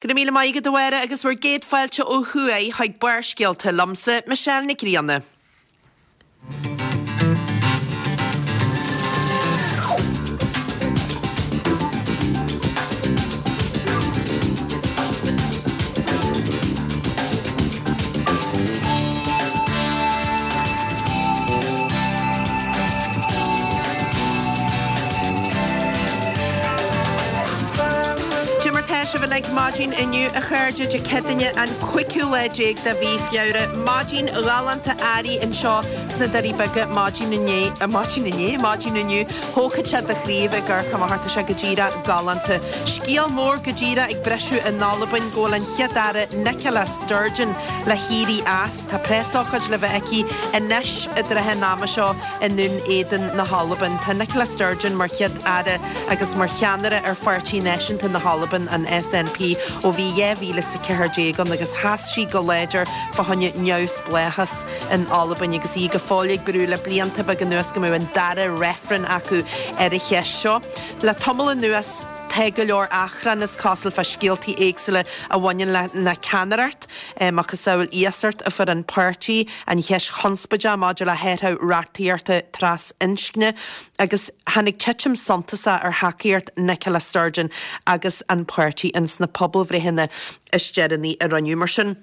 Go raibh míle maith agat a Mháire agus bhur gcéad fáilte ó thuaidh chuig Barrscéalta liomsa, Michelle Nic Grianna. Cad é mar tá sibh uilig maidin inniu, a chairde, Dé Céadaoine an cúigiú lá déag de mhí Feabhra. Maidin ghalánta earraigh anseo sna Doirí Beaga maidin inné, maidin inné? Maidin inniu. Thógfadh sé do chroí a bheith ag amharc amach tá sé go díreach galánta. Scéal mór go díreach ag briseadh in Albain go bhfuil an Chéad-Aire Nicola Sturgeon le héirí as. Tá preasócáid le bheith aici anois i dtrátha an ama seo i nDún Éideann na hAlban. Tá Nicola Sturgeon mar Chéad-Aire agus mar cheannaire ar Pháirtí Náisiúnta na hAlban, an SNP, ó bhí 2014 ann agus sheas sí go láidir fá choinne neamhspleáchas in Albain agus í go fóill ag brú le blianta beaga anuas go mbeadh an dara reifreann acu ar an cheist seo. Le tamall anuas tá go leor achrann is cosúil fá scéaltaí éagsúla a bhaineann lena ceannaireacht, macasamhail iasacht a fuair an páirtí, an cheist chonspóideach maidir le hathrú reachtaíochta tras-inscne agus tháinig titim suntasach ar thacaíocht Nicola Sturgeon agus an páirtí ins na pobalbhreitheanna is deireanaí a rinneadh. Mar sin,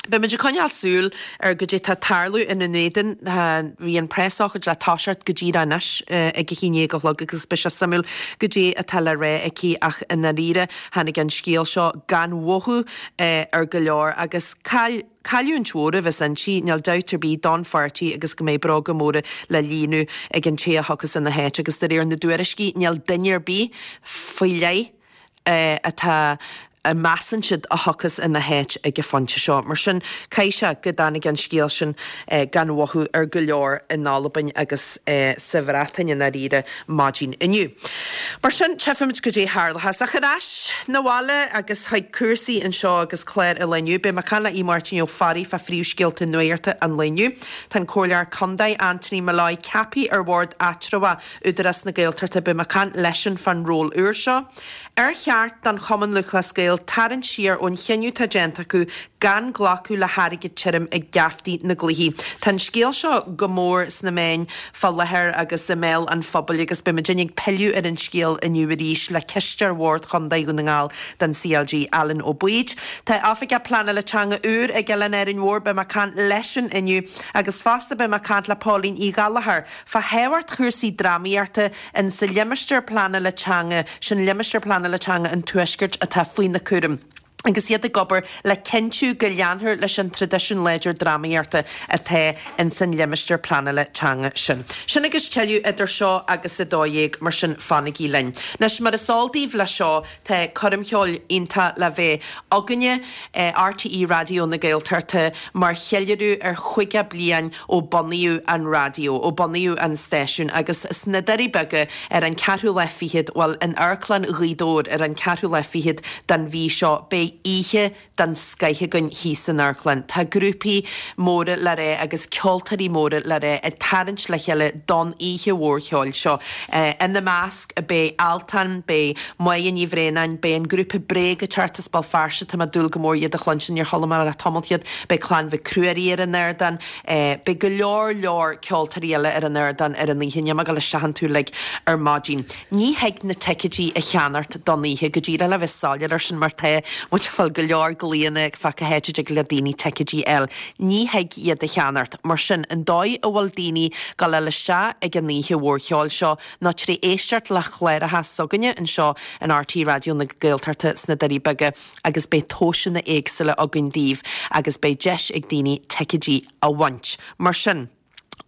beimid ag coinneáil súil ar goidé tá ag tarlú i nDún Éideann. Bhí an preasócáid le toiseacht go díreach anois ag a haon déag a chlog agus beidh sé suimiúil goidé atá le rá aici ach i ndáiríre tháinig an scéal seo gan mhothú ar go leor agus caill Cailliúint mhór a bheas inti, níl dabht ar bith, don pháirtí agus go mbeidh bróga móra le líonadh ag an té a thiocfas ina háit agus de réir na dtuairiscí níl duine ar bith faoi leith atá a measann siad a thiocfas ina háit ag an phointe seo. Mar sin, caithfidh sé go dtáinig an scéal sin gan mhothú ar go leor in Albain agus sa Bhreatain i ndáiríre maidin inniu. Mar sin, tchífimid goidé a tharlóchas. Ach ar ais 'na bhaile agus chuig cúrsaí anseo agus clár an lae inniu, beidh mé ag caint le Aodh Máirtín Ó Fearraigh fá phríomhscéalta nuachta an lae inniu. Tá an Comhairleoir Contae Anthony Molloy ceaptha ar bhord eatramhach Údarás na Gaeltachta. Beidh mé ag caint leisean fán ról úr seo. Ar cheart don Chumann Lúthchleas Gael tarraingt siar ón chinneadh atá déanta acu gan glacadh le hairgead tirim ag geaftaí na gcluichí? Tá an scéal seo go mór sna meáin fá láthair agus i mbéal an phobail agus beidh muidinne ag pilleadh ar an scéal inniu arís le Cisteoir Bhord Chontae Dhún na nGall don CLG, Alan Ó Baoid. Tá Oifigeach Pleanála Teanga úr ag Oileán Árainn Mhór, beidh mé ag caint leisean inniu agus fosta beidh mé ag caint le Póilín Uí Ghallchóir fá thábhacht chúrsaí drámaíochta in sa limistéar pleanála teanga, sin limistéar pleanála teanga an Tuaiscirt atá faoina cúram, agus iad ag obair le cinntiú go leanfar leis an traidisiún láidir drámaíochta atá in san limistéar pleanála teanga sin. Sin agus tuilleadh idir seo agus 12:00, mar sin fanaigí linn. Anois, mar is eol daoibh leis seo, tá coirm cheoil iontach le bheith againne, RTÉ Raidió na Gaeltachta, mar cheiliúradh ar 50 bliain ó bunaíodh an raidió, ó bunaíodh an stáisiún agus sna Doirí Beaga ar an ceathrú lá fichead, bhuel, in Amharclann Ghaoth Dobhair ar an ceathrú lá fichead den mhí seo, beidh oíche den scoith againn thíos san amharclann. Tá grúpaí móra le rá agus ceoltóirí móra le rá ag tarraingt le chéile don oíche mhór cheoil seo. Ina measc beidh Altan, beidh Máire Ní Bhraonáin, beidh an grúpa Bréag ag teacht as Béal Feirste, tá mé ag dúil go mór iad a chluinstin, níor chuala mé le tamall iad, beidh Clann Mhic Ruairí ar an ardán, beidh go leor leor ceoltóirí eile ar an ardán ar an oíche, níl mé ag dul isteach iontu uilig ar maidin. Ní thig na ticéidí a cheannacht don oíche, go díreach le bheith soiléir air sin mar tá muid ag fáil go leor glaonna fá cá háit a dtig le daoine ticéidí a fháil. Ní thig iad a cheannacht. Mar sin, an dóigh a bhfuil daoine ag gabháil isteach ag an oíche mhór cheoil seo ná tré éisteacht le chláracha s'againne anseo in RTÉ Raidió na Gaeltachta sna Doirí Beaga agus beidh tomhaiseanna éagsúla againn daoibh agus beidh deis ag daoine ticéidí a bhaint. Mar sin,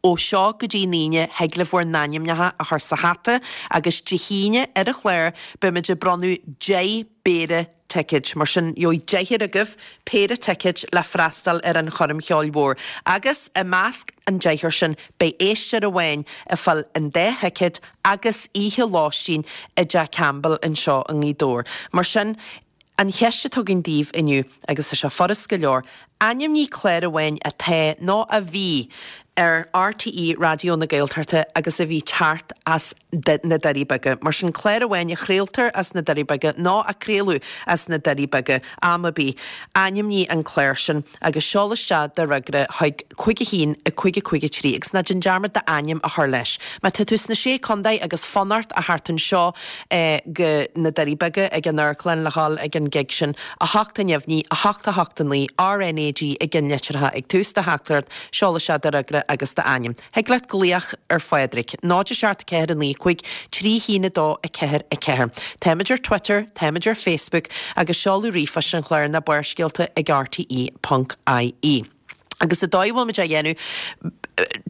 ó seo go dtí an Aoine thig libh bhur n-ainmneacha a chur sa hata agus Dé hAoine ar an chlár beimid ag bronnadh 10 bpéire ticéid. Mar sin, gheobhaidh deichniúr agaibh péire ticéid le freastal ar an choirm cheoil mhór. Agus i measc an deichniúr sin, beidh éisteoir amháin ag fáil an dá thicéad agus oíche lóistín i dTeach Campbell anseo i nGaoth Dobhair. Mar sin, an cheist atá againn daoibh inniu, agus tá sé furast go leor, ainmnigh clár amháin atá nó a bhí. ar RTÉ Raidió na Gaeltachta agus a bhí teacht as na Doirí Beaga. Mar sin clár amháin a chraoltar as na Doirí Beaga nó a craoladh as na Doirí Beaga am ar bith, ainmnigh an clár sin agus seol isteach do fhreagra chuig 5 1 5 5 3 agus ná déan dearmad d'ainm a chur leis. Má tá tú sna Sé Contae agus fanacht a theacht anseo go na Doirí Beaga ag an amharclann le dhul ag an gig sin, 8 neamhní, 8 8 9, RNAG i gceannlitreacha ag tús do theachtaireacht, Seol isteach do fhreagra agus d'ainm. Thig leat glaoch ar Phádraig, 0 7 4 9 5 3 1 2 4 4. Táimid ar Twitter, táimid ar Facebook agus seoladh ríomhphoist an chláir ná Barrscéalta ag rte.ie. Agus an dóigh a bhfuilimid á dhéanamh,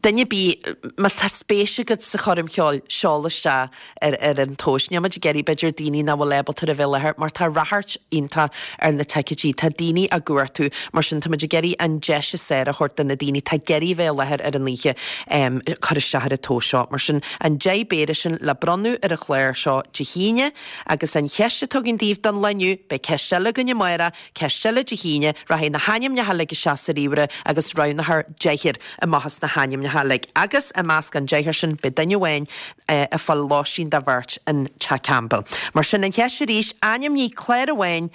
duine ar bith, má tá spéis agat sa choirm cheoil, seol isteach ar ar an tomhas. Níl muid ag iarraidh b'fhéidir daoine nach bhfuil ábalta a bheith i láthair mar tá ráchairt iontach ar na ticéidí, tá daoine á gcuartú, mar sin tá muid ag iarraidh an deis is fearr a thabhairt do na daoine atá ag iarraidh a bheith i láthair ar an oíche cur isteach ar an tomhas seo. Mar sin an 10 bpéire sin le bronnadh ar an chlár seo Dé hAoine agus an cheist atá againn daoibh don lá inniu, beidh ceist eile againn amárach, Ceist eile Dé hAoine, rachaidh na hainmneacha uilig isteach sa ríomhaire agus roghnófar deichniúr amach as na hainmneacha uilig. Agus i measc an deichniúr sin beidh duine amháin ag fáil lóistín do bheirt in Teach Campbell. Mar sin an cheist arís, ainmnigh clár amháin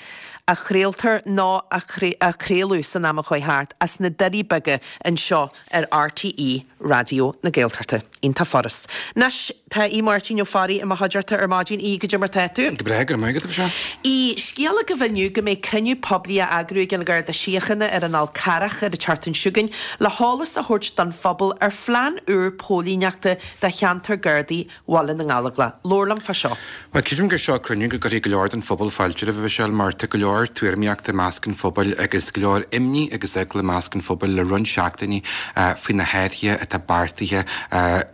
a chraoltar nó a craoladh san am a chuaigh thart as na Doirí Beaga anseo ar RTÉ Raidió na Gaeltachta. Iontach furast. Anois, tá Aodh Máirtín Ó Fearraigh i mo chuideachta ar maidin. Aodh, goidé mar tá tú? Go breá, go raibh maith agat, a Mhichelle. Aodh, scéal agaibh inniu go mbeidh cruinniú poiblí á eagrú ag an Gharda Síochána ar an Fhál Carrach ar an tseachtain seo chugainn le heolas a thabhairt don phobal ar phlean úr póilíneachta do cheantar Gardaí Bhaile na nGallóglach. Labhair liom fá seo. Bhuel, creidim gur seo cruinniú go gcuirfidh go leor den phobal fáilte roimhe, a Mhichelle, mar tá go leor tuairimíochta i measc an phobail agus go leor imní agus eagla i measc an phobail le roinnt seachtainí faoi na hathruithe atá beartaithe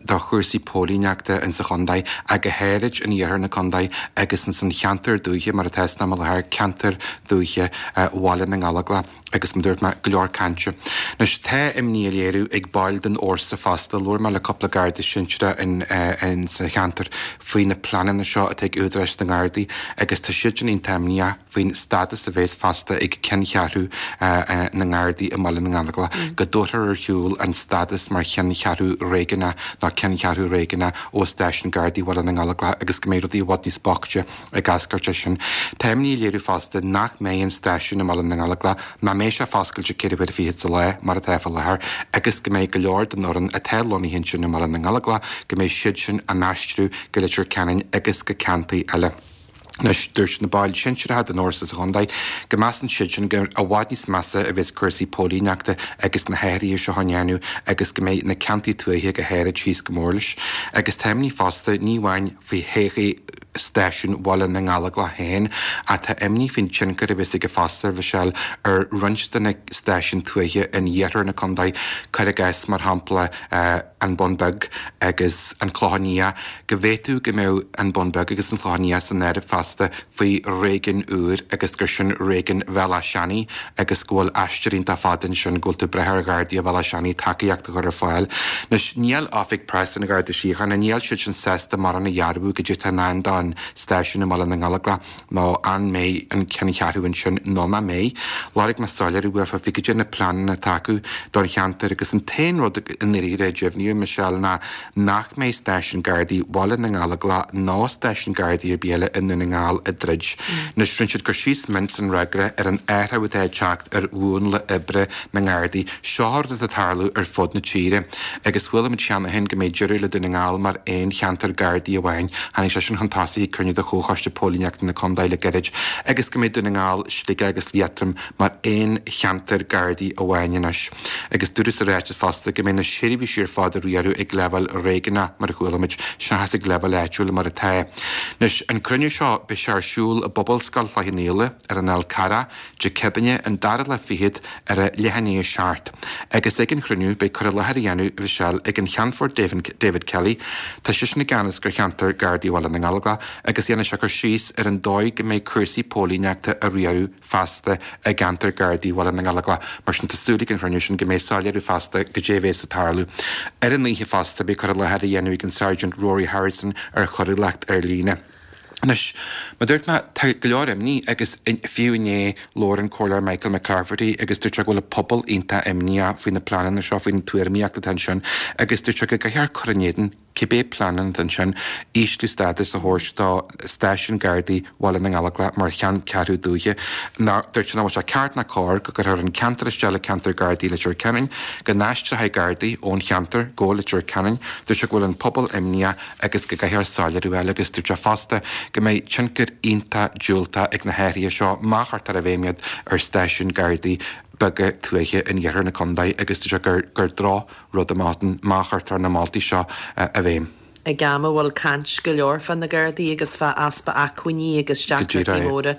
do chúrsaí póilíneachta in sa chontae, ach go háirid in iarthar na contae agus ins an cheantar dúiche, mar atá san am i láthair, ceantar dúiche Bhaile na nGallóglach. Agus mar a dúirt mé, go leor cainte. Anois, tá imní á léiriú ag baill den fhórsa fosta. Labhair mé le cúpla Garda sinsearach in sa cheantar faoi na pleananna seo atá ag údaráis na nGardaí agus tá siadsan iontach imníoch faoin stádas a bheas fosta ag ceanncheathrú na nGardaí i mBaile na nGallóglach, go dtabharfar ar shiúl an stádas mar cheanncheathrú réigiúnach nó ceanncheathrú réigiúnach ó stáisiún Gardaí Bhaile na nGallóglach agus go mbeidh rudaí i bhfad níos boichte ag eascairt as sin. Tá imní á léiriú fosta nach mbeidh an stáisiún i mBaile na nGallóglach, nach mbeidh sé foscailte 4 huaire fichead sa lá, mar atá fá láthair, agus go mbeidh go leor den fhoireann atá lonnaithe ansin i mBaile na nGallóglach, go mbeidh siad sin á n-aistriú go Leitir Ceanainn agus go ceantair eile. Anois, dúirt na baill shinsearacha den fhórsa sa chontae go measann siadsan gur i bhfad níos measa a bheas cúrsaí póilíneachta agus na hathruithe seo á ndéanamh agus go mbeidh na ceantair tuaithe go háirid thíos go mór leis. Agus tá imní fosta, ní amháin faoi thodhchaí stáisiún Bhaile na nGallóglach féin, ach tá imní faoin tionchar a bheas aige fosta, a Mhichelle, ar roinnt de na stáisiúin tuaithe in iarthar na contae, cuir i gcás, mar shampla, an Bun Beag agus an Clochán Liath, go bhféadfadh go mbeadh an Bun Beag agus an Clochán Liath san áireamh fosta faoi réigiún úr agus gur sin réigiún Bhéal Átha Seanaidh agus go bhfuil aistear iontach fada ansin, go bhfuil tú ag brath ar Ghardaí Bhéal Átha Seanaidh tacaíocht a chur ar fáil. Anois, níl Oifig Preasa an Gharda Síochána, níl siad sin sásta mórán a dhearbhú goidé atá i ndán don stáisiún i mBaile na nGallóglach nó an mbeidh an ceanncheathrú ansin nó nach mbeidh. Lorg mé soiléiriú uafa faoi goidé na pleananna atá acu don cheantar agus an t-aon rud i ndáiríre a deimhníodh, Michelle, ná nach mbeidh stáisiún Gardaí Bhaile na nGallóglach ná stáisiún Gardaí ar bith eile i nDún na nGall ag druid. Anois, rinne siad cur síos mion san fhreagra ar an athrú atá ag teacht ar mhúnla oibre na nGardaí. Seo rud atá ag tarlú ar fud na tíre. Agus chuala muid cheana féin go mbeidh deireadh le Dún na nGall mar aon cheantar Gardaí amháin. Tháinig sé sin chun tosaigh ag cruinniú de Chomhchoiste Póilíneachta na Condae le gairid. Agus go mbeidh Dún na nGall, Sligeach agus Liatroim mar aon cheantar Gardaí amháin anois. Agus dúradh sa ráiteas fosta go mbeidh na seirbhísí ar fad á riaradh ag leibhéal réigiúnach, mar a chuala muid, seachas ag leibhéal áitiúil mar atá. Anois, an cruinniú seo, beidh sé ar siúl i bPobalscoil Chloich Cheann Fhaola, ar an Fhál Carrach, Dé Céadaoine, an dara lá fichead, ar a leath i ndiaidh a 7. Agus ag an chruinniú, beidh cur i láthair á dhéanamh, a Mhichelle, ag an Cheannfort David Kelly, tá seisean i gceannas ar cheantar Gardaí Bhaile na nGallóglach, agus dhéanfaidh sé cur síos ar an dóigh go mbeidh cúrsaí póilíneachta á riaradh feasta i gceantar Gardaí Bhaile na nGallóglach. Mar sin, tá súil ag an chruinniú sin go mbeidh soiléiriú feasta goidé a bhéas ag tarlú. Ar an oíche fosta, beidh cur i láthair á dhéanamh ag an Sergeant Rory Harrison ar choiriúlacht ar líne. Anois, mar a dúirt mé, tá go leor imní agus fiú inné labhair an Comhairleoir Michael McClafferty agus dúirt sé go bhfuil an pobal iontach imníoch faoi na pleananna seo, faoin tuairimíocht atá ansin agus dúirt sé go gcaithfear cur in éadan cibé pleananna atá ansin, ísliú stádas a thabhairt do stáisiún Gardaí Bhaile na nGallóglach mar cheanncheathrú dúiche. Dúirt sé nach bhfuil sé ceart ná cóir go gcuirfear an ceantar isteach le ceantar Gardaí Leitir Ceanainn, go n-aistreofaí Gardaí ón cheantar go Leitir Ceanainn. Dúirt sé go bhfuil an pobal imníoch agus go gcaithfear soiléiriú a fháil agus dúirt sé fosta go mbeidh tionchar iontach diúltach ag na hathruithe seo má chuirtear i bhfeidhm iad ar stáisiúin Gardaí beaga tuaithe in iarthar na contae agus dúirt sé gur gur droch rud amach ann má chuirtear na moltaí seo i bhfeidhm. Ag am a bhfuil caint go leor fá na Gardaí agus fá easpa acmhainní agus deacrachtaí móra,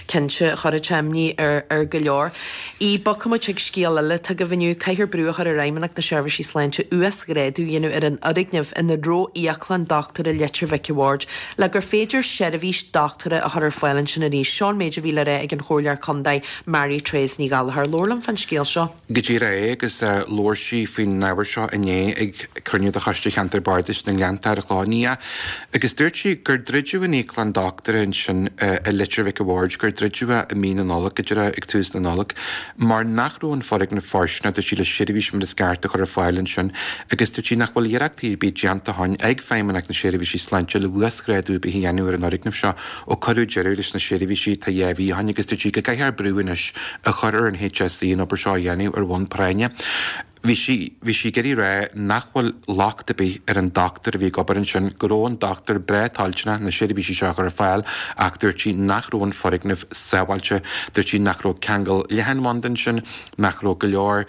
cinnte, chuirfeadh sé imní ar go leor. Í, Bogfaidh muid chuig scéal eile atá agaibh inniu. Caithfear brú a chur ar Fheidhmeannacht na Seirbhísí Sláinte uasghrádú a dhéanamh ar an fhoirgneamh ina raibh íoclann dochtúra Leitir Mhic a' Bhaird le gur féidir seirbhís dochtúra a chur ar fáil ansin arís. Seo an méid a bhí le rá ag an Chomhairleoir Contae Mary Therese Ní Ghallchóir. Labhair liom fán scéal seo. Go díreach é agus labhair sí faoin ábhar seo inné ag cruinniú de Choiste Cheantar Bardais na nGleannta ar an Chlochán Liath agus dúirt sí gur druideadh an íoclann dochtúra ansin i Leitir Mhic a' Bhaird, gur druideadh é i mí na Nollag, go díreach ag tús na Nollag, mar nach raibh an foirgneamh fóirsteanach, dúirt sí, le seirbhís mar is ceart a chur ar fáil ansin agus dúirt sí nach bhfuil iarrachtaí ar bith déanta ó shin ag Feidhmeannacht na Seirbhísí Sláinte le uasghrádú ar bith a dhéanamh ar an fhoirgneamh seo ó cuireadh deireadh leis na seirbhísí tá 2 mhí ó shin agus dúirt sí go gcaithfear brú anois a chur ar an HSE an obair seo a dhéanamh ar bhonn práinne. Bhí sí, bhí sí ag iarraidh a rá nach bhfuil locht ar bith ar an dochtúir a bhí ag obair ansin, go raibh an dochtúir breá toilteanach na seirbhísí seo a chur ar fáil ach dúirt sí nach raibh an foirgneamh sábháilte. Dúirt sí nach raibh ceangal leathanbhanda ansin, nach raibh go leor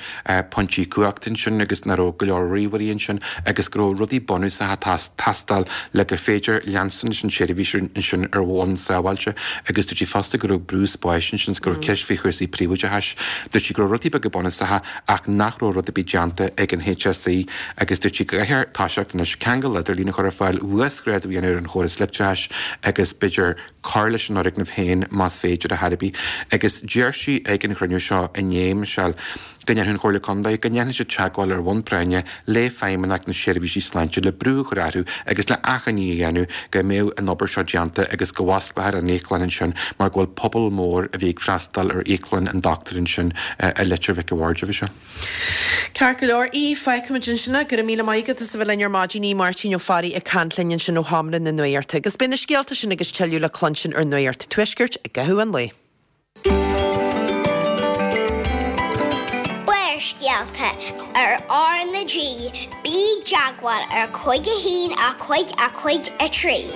pointí cumhachta ansin agus nach raibh go leor ríomhairí ansin agus go raibh rudaí bunúsacha ag teastáil le gur féidir leanstan leis an tseirbhís ansin ar bhonn sábháilte agus dúirt sí fosta go raibh brú spáis ansin is go raibh ceist faoi chúrsaí príobháideachais. Dúirt sí go raibh rudaí beaga bunúsacha ach nach raibh rud ar bith déanta ag an HSE agus dúirt sí go gcaithfear toiseacht anois ceangal idirlín a chur ar fáil, uasghrádú a dhéanamh ar an chóras leictreachais agus b'fhéidir cur leis an fhoirgneamh féin más féidir ar chor ar bith. Agus deir sí ag an chruinniú seo inné, Michelle, go ndéanfaidh an Chomhairle Contae, go ndéanfaidh siad teagmháil ar bhonn práinne le Feidhmeannacht na Seirbhísí Sláinte le brú a chur orthu agus le achainí a dhéanamh go mbeadh an obair seo déanta agus go bhfosclófar an íoclann ansin mar go bhfuil pobal mór a bhí ag freastal ar íoclann an dochtúir ansin i Leitir Mhic a' Bhaird, a Mhichelle. Ceart go leor, Aodh, fágfaimid ansin é. Go raibh míle maith agat as a bheith linn ar maidin, Aodh Máirtín Ó Fearraigh ag caint linn ansin ó Sheomra na Nuachta. Agus beidh na scéalta sin agus tuilleadh le cluinstin ar Nuacht an Tuaiscirt i gcaitheamh an lae. Barrscéalta ar R na G, bí i dteagmháil ar 5 1 5 5 3.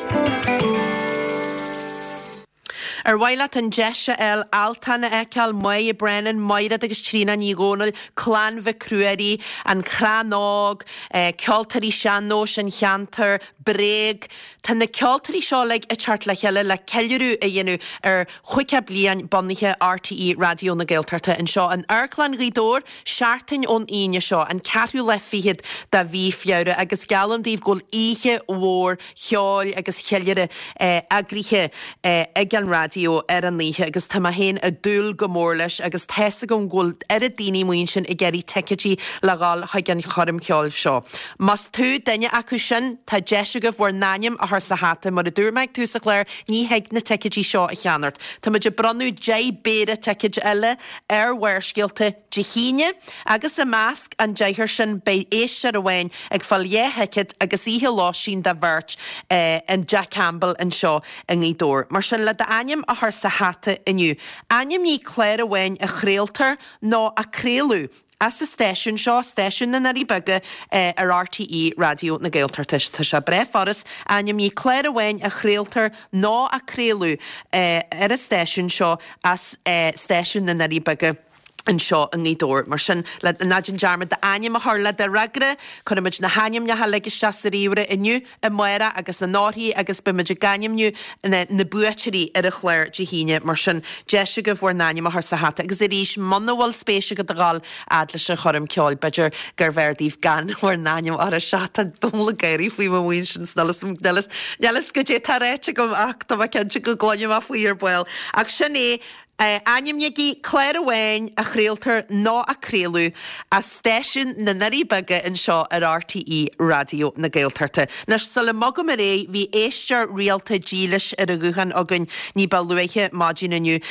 Ar mhaith leat an deis a fháil Altan a fheiceáil, Máire Brennan, Maighread agus Tríona Ní Dhomhnaill, Clann Mhic Ruairí, An Crann Óg, Ceoltóirí Sean-Nóis an Cheantair, Bréag. Tá na ceoltóirí seo uilig ag teacht le chéile le ceiliúradh a dhéanamh ar 50 bliain bunaithe RTÉ Raidió na Gaeltachta anseo in Amharclann Ghaoth Dobhair seachtain ón Aoine seo, an ceathrú lá fichead de mhí Feabhra agus geallaim daoibh go bhfuil oíche mhór cheoil agus cheiliúradh eagraithe ag an raidió ar an oíche agus tá mé féin ag dúil go mór leis agus tá's agam go bhfuil oiread daoine amuigh ansin ag iarraidh ticéidí le dhul chuig an choirm cheoil seo. Más tú duine acu sin, tá deis agaibh bhur n-ainm a chur sa hata, mar a dúirt mé ag tús an chláir, ní thig na ticéidí seo a cheannacht. Tá muid ag bronnadh 10 bpéire ticéid eile ar Bharrscéalta Dé hAoine agus i measc an deichniúr sin beidh éisteoir amháin ag fáil dhá thicéad agus oíche lóistín do bheirt in dTeach Campbell anseo i nGaoth Dobhair. Mar sin, le d'ainm a chur sa hata inniu, ainmnigh clár amháin a chraoltar nó a craoladh as an stáisiún seo, stáisiún na nDoirí Beaga ar RTÉ Raidió na Gaeltachta. Tá sé breá furast, ainmnigh clár amháin a chraoltar nó a craoladh ar an stáisiún seo as stáisiún na nDoirí Beaga anseo i nGaoth Dobhair. Mar sin, le, ná déan dearmad d'ainm a chur le do fhreagra. Cuirfimid na hainmneacha uilig isteach sa ríomhaire inniu, amárach agus anóirthí agus beimid ag ainmniú na na buaiteoirí ar an chlár Dé hAoine. Mar sin, deis agaibh bhur n-ainm a chur sa hata. Agus arís, muna bhfuil spéis agat a dhul fhad leis an choirm ceoil, b'fhéidir gurbh fhearr daoibh gan bhur n-ainm a chur isteach. Tá Dónal ag gáirí faoi mo mhuin sin 's níl 'fhios goidé tá ráite agam ach tá mé cinnte go gcluinfidh mé faoi ar ball. Ach sin é. Ainmnígí clár amháin a chraoltar nó a craoladh as stáisiún na nDoirí Beaga anseo ar RTÉ Raidió na Gaeltachta. Anois, sula mbogaim ar aghaidh, bhí éisteoir rialta dílis ar an ghuthán againn ní ba luaithe maidin inniu,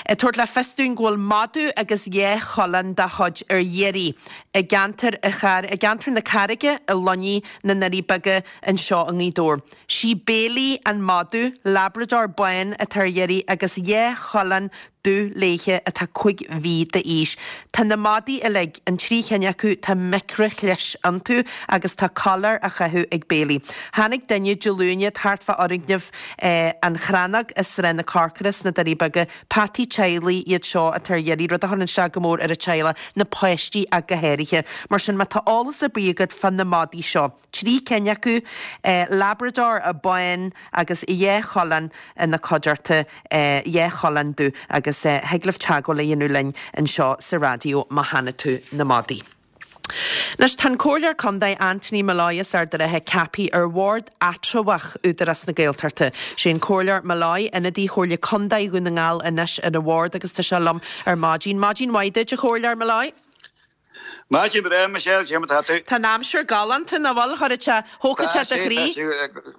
ag tabhairt le fios dúinn go bhfuil madadh agus dhá choileán dá chuid ar iarraidh i gceantar i gceantar na Carraige i Luinnigh na nDoirí Beaga anseo i nGaoth Dobhair. Sí Bailey an madadh, Labrador bán atá ar iarraidh agus dhá choileán dubh léithe atá 5 mhí d'aois. Tá na madaí uilig, an trí chinn acu, tá micrishlis iontu agus tá coiléar á chaitheamh ag Bailey. Tháinig duine Dé Luain thart fá fhoirgneamh An Chrannóg i Srath na Corcra sna Doirí Beaga. Peataí teaghlaigh iad seo atá ar iarraidh, rud a chuireann isteach go mór ar an teaghlach, na páistí ach go háirithe. Mar sin má tá eolas ar bith agat fá na madaí seo. 3 cinn acu, Labrador bán agus dhá choileán ina cuideachta, dhá choileán dubh agus thig libh teagmháil a dhéanamh linn anseo sa raidió má chonaic tú na madaí. Anois tá an Comhairleoir Contae Anthony Molloy as Ard an Rátha ceaptha ar Bhord Eatramhach Údarás na Gaeltachta. Sé an Comhairleoir Molloy ionadaí Chomhairle Contae Dhún na nGall anois ar an bhord agus tá sé liom ar maidin. Maidin mhaith duit a Chomhairleoir Molloy. Maidin bhreá, Michelle, cé mar atá tú? Tá an aimsir galánta, nach bhfuil? Chuirfeadh sé, thógfadh sé do chroí.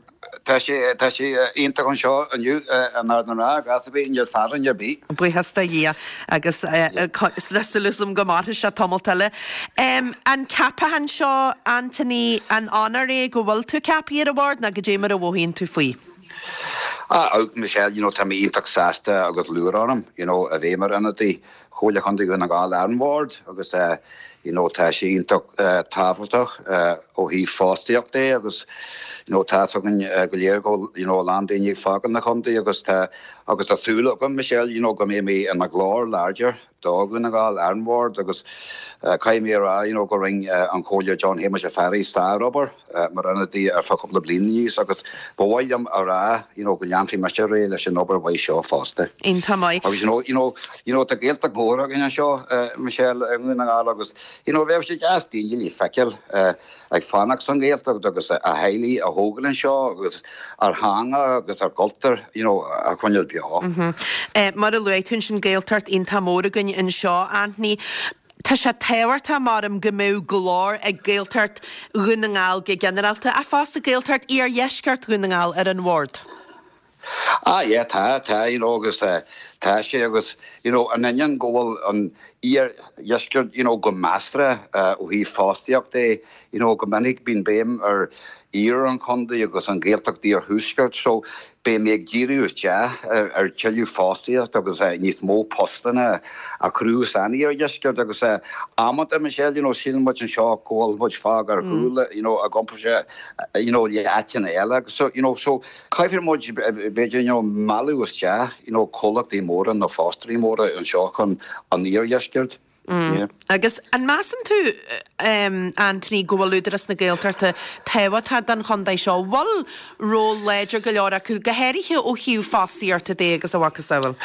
Tá sé, tá sé iontach anseo inniu in Ard an Rátha, gas ar bith, níl fearthainn ar bith. Buíochas do Dhia agus tá súil agam go mairfidh sé tamalt eile. An ceapachán seo, Anthony, an onóir é go bhfuil tú ceaptha ar an bhord nó goidé mar a mhothaíonn tú faoi? Ah, Michelle, you know, tá mé iontach sásta agus lúcháir orm, you know, a bheith mar ionadaí Chomhairle Chontae Dhún na nGall ar an bhord agus you know tá sé iontach tábhachtach ó thaobh fostaíocht de agus you know tá fhios againn go léir go bhfuil you know a lán daoine ag fágáil na chontae agus tá agus tá súil agam Michelle you know go mbeidh mé i mo ghlór láidir do Dhún na nGall ar an bhord agus caithfidh mé a rá you know go rinne an Comhairleoir John Shéamuis Ó Fearraigh sárobair mar ionadaí ar feadh cúpla bliain aníos agus ba mhaith liom a rá you know go leanfaidh mise ar aghaidh leis an obair mhaith seo fosta. Iontach maith. Agus you know, you know, you know tá Gaeltacht mhór againn anseo Michelle i nDún na nGall agus you know bheadh sé deas daoine le feiceáil ag fanacht san Ghaeltacht agus a theaghlaigh a thógáil anseo agus ár theanga agus ár gcultúr you know a choinneáil beo. Mar a luaigh tú ansin Gaeltacht iontach mór againn anseo Anthony. Tá sé tábhachtach, maram, go mbeadh glór ag Gaeltacht Dhún na nGall go ginearálta, ach fosta Gaeltacht Iardheisceart Dhún na nGall ar an bhord. Ah yeah, tá, tá, you know, agus tá sé agus, you know, in ainneoin go bhfuil an iardheisceart, you know, go measartha ó thaobh fostaíocht de, you know, go minic bíonn béim ar iarthar an chontae agus an Ghaeltacht iarthuaisceart, so Beidh mé ag díriú isteach ar tuilleadh fostaíocht agus níos mó postanna a chruthú san iardheisceart agus amanta, Michelle, you know, síleann muid anseo go bhfuil muid fágtha ar chúl, you know, i gcomparáid, you know, le áiteanna eile agus so, you know, so caithfidh muid b'fhéidir, you know, mealladh isteach, you know, comhlachtaí móra nó fostóirí móra anseo chun an iardheisceart. Agus an measann tú, Anthony, go bhfuil Údarás na Gaeltachta tábhachtach don chontae seo? An bhfuil ról láidir go leor acu, go háirithe ó thaobh fostaíochta de agus a mhacasamhail?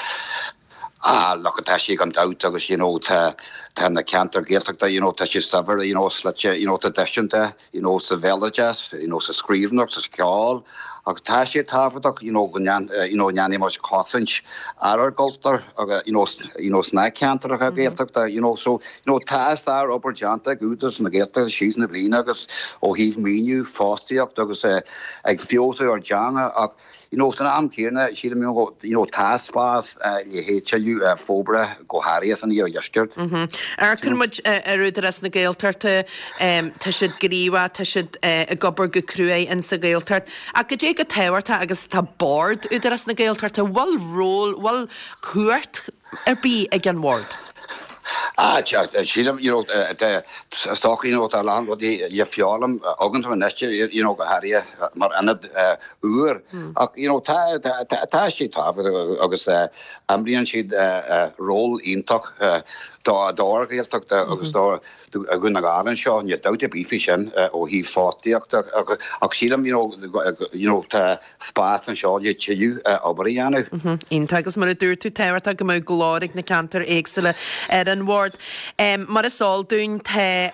Ah, look, tá sé gan dabht agus, you know, tá, tá na ceantair Ghaeltachta, you know, tá sé saibhir, you know, slite, you know, traidisiúnta. you know sa bhéaloideas, you know sa scríbhneoireacht, sa cheol agus tá sé tábhachtach you know go you know ndéanfaidh muid cosaint ar ár gcultúr agus you know you know sna ceantracha Gaeltachta you know so you know tá sár-obair déanta ag Údarás na Gaeltachta síos na bliana agus ó thaobh maoiniú, fostaíocht agus ag feabhsú ár dteanga ach You know, san am céanna, sílim, you know, you know, tá spás le haghaidh tuilleadh forbartha, go háirithe san iardheisceart. Amharcann muid ar Údarás na Gaeltachta, tá siad gníomhach, tá siad ag obair go cruaidh in sa Ghaeltacht. Ach goidé chomh tábhachtach agus atá Bord Údarás na Gaeltachta, bhfuil ról, bhfuil cumhacht ar bith ag an bhord? Ah, sílim, you know, is dócha, you know, tá a lán rudaí le foghlaim againn anois, you know, go háirithe mar ionad úr. Ach, you know, tá, tá sé tábhachtach agus imríonn siad ról iontach dár Ghaeltacht agus do Dhún na nGall anseo, níl dabht ar bith faoi sin ó thaobh fostaíochta ach sílim, you know, you know, tá spás anseo le tuilleadh obair a dhéanamh. Iontach agus mar a dúirt tú, tábhachtach go mbeadh glór ag na ceantair éagsúla ar an bhord. Bord. Mar is eol dúinn tá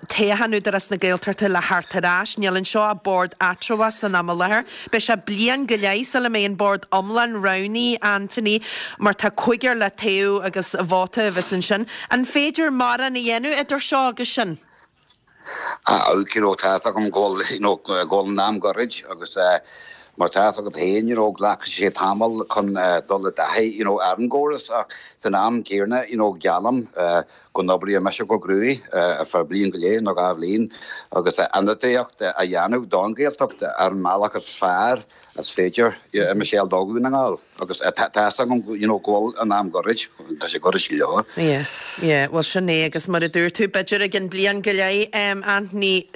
toghchán Údarás na Gaeltachta le theacht ar ais. Níl anseo ach bord eatramhach san am i láthair. Beidh sé bliain go leith sula mbeidh an bord iomlán roghnaithe, Anthony, mar tá cúigear le toghadh agus vóta a bheas ansin. An féidir mórán a dhéanamh idir seo agus sin? Ah you know tá fhios agam go bhfuil you know go bhfuil an am goirid agus mar tá fhios agat féin you know glacfaidh sé tamall chun dul i dtaithí you know ar an gcóras ach san am céanna you know geallaim go n-oibreoidh mise go cruaidh ar feadh bliain go leith nó 2 bhliain agus ionadaíocht a dhéanamh don Ghaeltacht ar an mbealach is fearr is féidir a Michelle do Dhún na nGall agus tá fhios agam you know go bhfuil an am goirid, tá sé goirid go leor. Yeah, yeah, bhuel sin é agus mar a dúirt tú, b'fhéidir i gcionn bliain go leith, Anthony,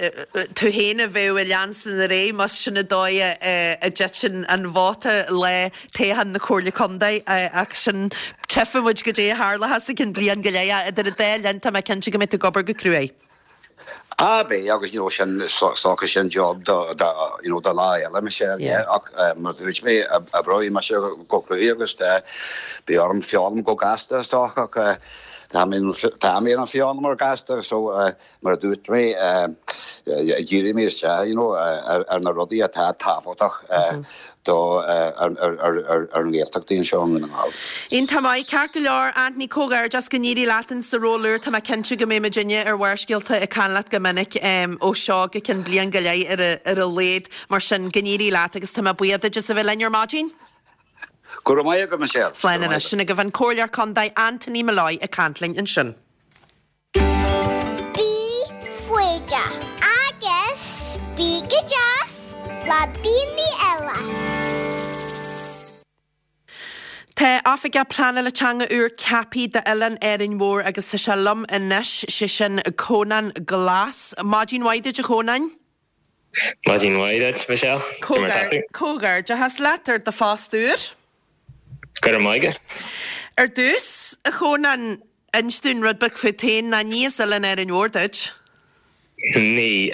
tú féin a bheadh i leanúint ar aghaidh más sin an dóigh a dtiteann an vóta lá toghchán na Comhairle Contae ach sin, tchífidh muid goidé a tharlóchas i gcionn bliain go leith ach idir an dá linn tá mé cinnte go mbeidh tú ag obair go cruaidh. Ah beidh agus you know sin is dócha sin job do do you know do lá eile Michelle yeah ach mar a dúirt mé oibreoidh mise go cruaidh agus beidh orm foghlaim go gasta is dócha ach tá mé tá mé ina foghlaimeoir gasta so mar a dúirt mé díreoidh mé isteach you know ar na rudaí atá tábhachtach do ar an nGaeltacht anseo i nDún na nGall. Iontach maith. Ceart go leor, Anthony, comhghairdeas, go n-éirí leat in sa ról úr. Tá mé cinnte go mbeidh muidinne ar Bharrscéalta ag caint leat go minic ó seo go ceann bliain go leith ar a laghad. Mar sin, go n-éirí leat agus tá mé buíoch duit as a bheith linn ar maidin. Go raibh maith agat, Michelle. Slán anois. Sin agaibh an Comhairleoir Contae Anthony Molloy ag caint linn ansin. Bí foighdeach agus bí go deas le daoine eile. Tá Oifigeach Pleanála Teanga úr ceaptha d'Oileán Árainn Mhór agus tá sé liom anois, sé sin Cónán Glas. Maidin mhaith duit a Chónáin. Maidin mhaith duit, Michelle. Cad é mar tá tú? Comhghairdeachas leat ar do phost úr. Go raibh maith agat. Ar dtús, a Chónáin, inis dúinn rud beag fút féin, ná ní as Oileán Árainn Mhór duit? Ní.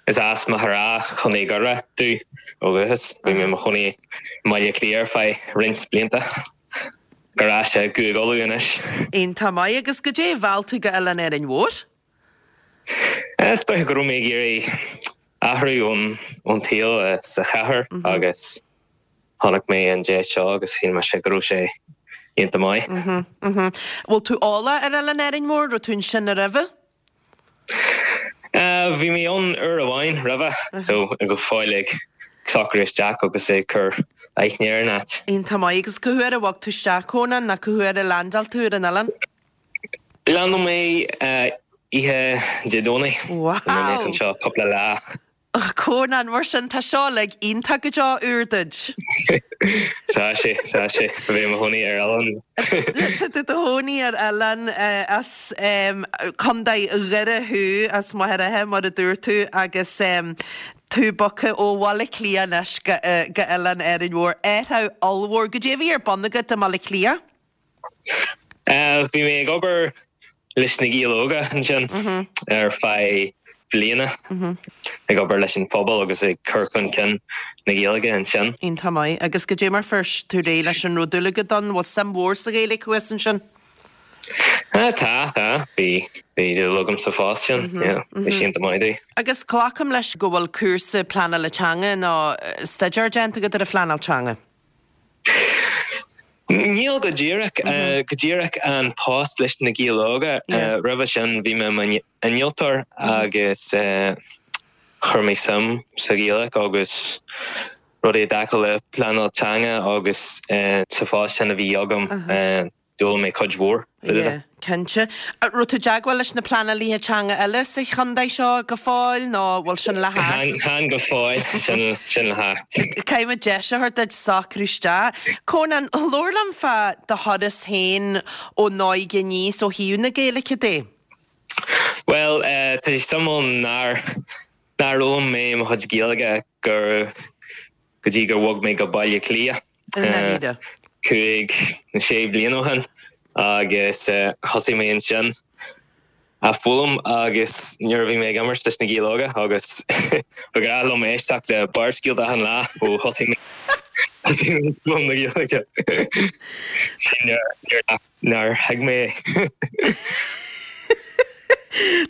Is as Machaire Rátha, Contae Dhoire domh ó dhúchas. Bhí mé i mo chónaí i mBaile Átha Cliath ar feadh roinnt blianta. Ar ais i gCúige Uladh anois. Iontach maith. Agus goidé a mheall tú go Oileán Árainn Mhór? Is dóiche go raibh mé ag iarraidh athrú ón tsaol sa chathair agus chonaic mé an deis seo agus shíl mise go raibh sé iontach maith. Bhfuil tú eolach ar Oileán Árainn Mhór? Raibh tú ansin roimhe? Bhí mé ann uair amháin roimhe so go fóill ag socrú isteach agus ag cur aithne ar an áit. Iontach maith. Agus cá huair a bhog tú isteach, Cónán, nó cá huair a leaindeáil tú ar an oileán? Leaindeáil mé oíche Dé Domhnaigh. Wow! Bhí mé anseo cúpla lá. Cónán, mar sin, tá seo uilig iontach go deo úr duit. Tá sé, tá sé. A bheith i mo chónaí ar oileán. Tá tú i do chónaí ar oileán as Contae Dhoire thú, as Machaire Rátha, mar a dúirt tú, agus tú bogtha ó Bhaile Átha Cliath anois go Oileán Árainn Mhór. Athrú ollmhór. Goidé a bhí ar bun agat i mBaile Átha Cliath? Bhí mé ag obair leis na Gaeil Óga ansin ar feadh bliana, ag obair leis an phobal agus ag cur chun cinn na Gaeilge ansin. Iontach maith. Agus goidé mar fuair tú réidh leis an raibh dúil agat ann? Bhfuil suim mhór sa Ghaeilge thuas ansin? Tá, tá. Bhí, bhí dúil agam sa phost sin, yeah. Bhí sé iontach maith domh. Agus glacaim leis go bhfuil cúrsa pleanála teanga nó staidéar déanta agat ar an phleanáil teanga? Níl go díreach. Go díreach an post leis na Gaeil Óga. Roimhe sin bhí mé i m'innealtóir agus chuir mé suim sa Ghaeilge agus rudaí i dtaca le pleanáil teanga agus sa phost sin a bhí agam. D'fhoghlaim mé cuid mhór. Yeah, cinnte. Raibh tú i dteagmháil leis na pleanálaithe teanga eile sa chontae seo go fóill nó bhfuil sin le theacht? Chan go fóill, sin sin le theacht. Caithfidh muid deis a thabhairt duit socrú isteach. Cónán, labhair liom fá do thuras féin ón óige aníos ó thaobh na Gaeilge de. Bhuel, tá sé suimiúil nár nár fhoghlaim mé mo chuid Gaeilge go go dtí gur bhog mé go Baile Átha Cliath 5 nó 6 bliana ó shin agus thosaigh mé ansin á foghlaim agus nuair a bhí mé ag imirt leis na Gaeil Óga agus ba ghnách liom éisteacht le Barrscéalta achan lá ó thosaigh mé. Thosaigh mé ag foghlaim na Gaeilge. Nár thuig mé é.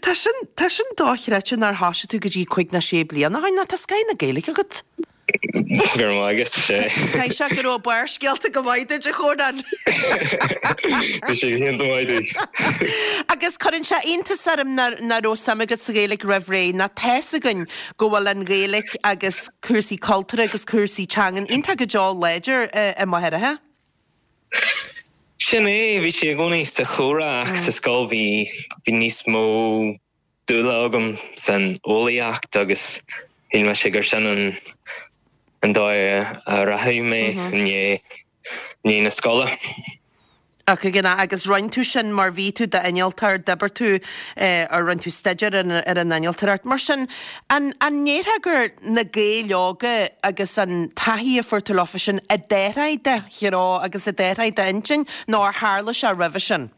Tá sin, tá sin dochreidte nár thoisigh tú go dtí cuig ná sé bliana ó shin, nó tá scoth na Gaeilge agat. Go raibh maith agat, sé. Caithfidh sé go raibh Barrscéalta go maith duit, a Chónáin. Bhí sé go hiontach maith duit. Agus cuireann sé iontas orm nach raibh suim agat sa Ghaeilge roimh ré, nó tá's againn go bhfuil an Ghaeilge agus cúrsaí cultúrtha agus cúrsaí teangan iontach go deo láidir i Machaire Rátha. Sin é, bhí sé i gcónaí sa chomhrá ach sa scoil bhí bhí níos mó dúile agam san eolaíocht agus shíl mise gur sin an an dóigh a rachadh mé i ndiaidh ndiaidh na scoile. Ach ag an agus rinne tú sin mar bhí tú d'innealtóir, d'oibir tú ar rinne tú staidéar ar an innealtóireacht. Mar sin, an an ndéarfá gur na Gaeil Óga agus an taithí a fuair tú leofa sin a d'athraigh do threo agus a d'athraigh d'intinn nó ar tharla sé roimhe sin?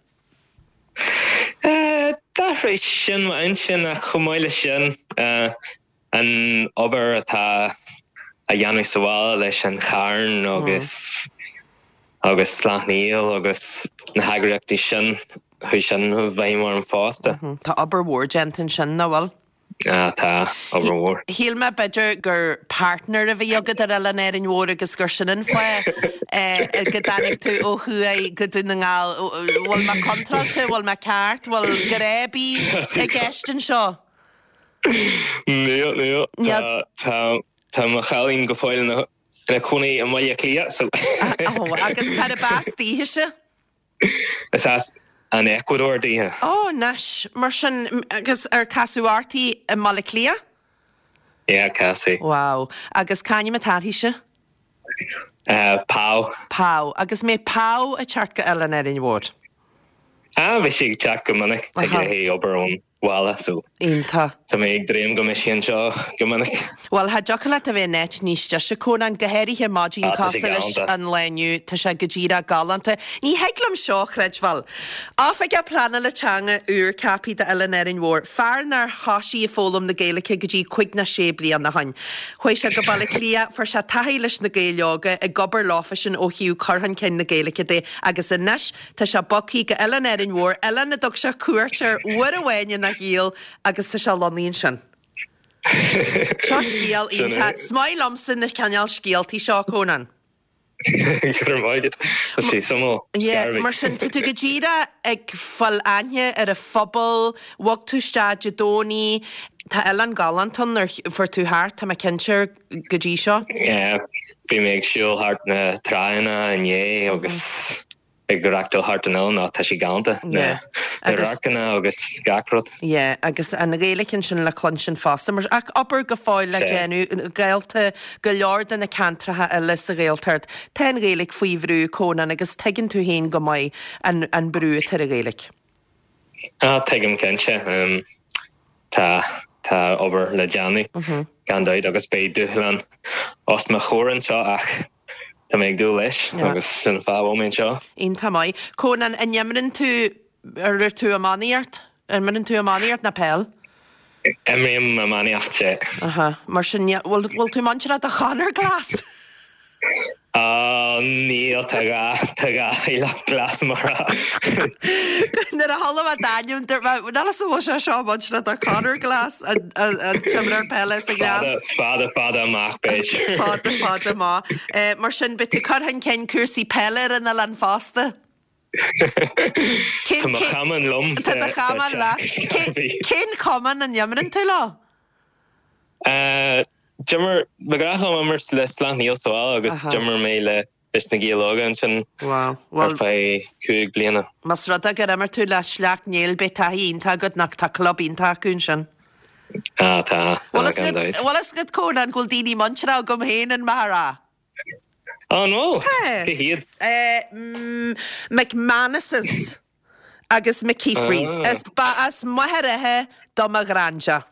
D'athraigh sin m'intinn ach chomh maith leis sin, an obair atá á dhéanamh sa bhaile leis an Charn agus agus Sleacht Néill agus na heagraíochtaí sin, chuaigh sin i bhfeidhm orm fosta. Tá obair mhór déanta ansin, nach bhfuil? Ah, tá, obair mhór. Shíl mé b'fhéidir gur partner a bhí agat ar Oileán Árainn Mhór agus gur sin an fáth go dtáinig tú ó thuaidh go Dún na nGall. Bhfuil mé contráilte? Bhfuil mé ceart? Bhfuil grá ar bith i gceist anseo? Níl, níl. Tá, tá, tá mo chailín go fóill ina, ina cónaí i mBaile Átha Cliath, so. Ó, agus cárb as daoithese? Is as an Eacuadór daoithe. Ó, anois, mar sin, agus ar casadh uirthi i mBaile Átha Cliath? Yeah, casadh. Wow. Agus c'ainm atá uirthise? Pau. Pau. Agus mbeidh Pau ag teacht go Oileán Árainn Mhór? Ah, bhí sí ag teacht go minic, ag obair ón bhaile so Iontach. tá mé ag dréim go mbeidh sí anseo go minic. Bhuel, cha dtiocfadh leat a bheith in áit níos deise, Cónán, go háirithe maidin Ah, tá sé cosúil leis galánta. an lá inniu, tá sé go díreach galánta. Ní thig liom seo a chreidbheáil. Oifigeach Pleanála Teanga úr ceaptha d'Oileán Árainn Mhór, fear nár thoisigh ag foghlaim na Gaeilge go dtí cuig ná sé bliana ó shoin. Chuaigh sé go Baile Átha Cliath, fuair sé taithí leis na Gaeil Óga, ag obair leofa sin ó thaobh cur chun cinn na Gaeilge de agus anois Tá sé bogthaí go Oileán Árainn Mhór, oileán a dtug sé cuairt air uair amháin ina shaol agus tá sé lonnaithe ansin. Seo scéal iontach. Is maith liomsa na cineál scéaltaí seo, Cónán. Go raibh maith agat. Tá sé suimiúil. Yeah, mar sin, tá tú go díreach ag fáil aithne ar an phobal, bhog tú isteach Dé Domhnaigh, tá oileán galánta ann, ar fuair tú thart, tá mé cinnte, go dtí seo? Yeah, bhí mé ag siúl thart na tránna inné agus ag reachtáil thart an oileán ach tá sé galánta, na radharcanna agus gach rud. Yeah, agus an Ghaeilge ansin le cluinstin fosta, mar ach obair go fóill le déanamh, Gaelta, go leor de na ceantracha eile sa Ghaeltacht, tá an Ghaeilge faoi bhrú, Cónán, agus tuigeann tú féin go maith an an brú atá ar an Ghaeilge. Ah, tuigim cinnte. Tá, tá obair le déanamh, gan dabht, agus beidh dúshlán os mo chomhair anseo ach Tá mé ag dúil leis agus sin an fáth a bhfuil mé anseo. Iontach maith. Cónán, an imríonn tú, ar tú iománaíocht? Imríonn tú iománaíocht nó peil? Imrím iománaíocht, sea. Aha. Mar sin, bhfuil, bhfuil tú muinteartha do Chonor Glass? Á, níl, tá dhá, tá dhá theaghlach Glass mar a. Nuair a chuala mé d'ainm, dúirt mé, níl a fhios an bhfuil sé seo muinteartha do Conor Glass, an, an, an t-imreoir peile sa Ghleann. Fada, fada, fada amach, b'fhéidir. Fada, fada amach. Mar sin, beidh tú ag cur chun cinn cúrsaí peile ar an oileán fosta. Tá mo chamán liom Tá do chamán leat. Cén cumann a n-imríonn tú leo? D'imir, ba ghnách liom imirt le Sleacht Néill sa bhaile agus d'imir mé le leis na Gaeil Óga ansin ar feadh 5 bliana. Más rud é gur imir tú le Sleacht Néill beidh taithí iontach agat nach tá club iontach acu ansin. Ah tá, tá gan dabht. Bhfuil fhios agat Cónán go bhfuil daoine muinteartha agam féin in Machaire Rátha? Á an bhfuil? Tá. Cé hiad? McManuses agus McKeefreys. Is ba as Machaire Rátha do mo ghraindea.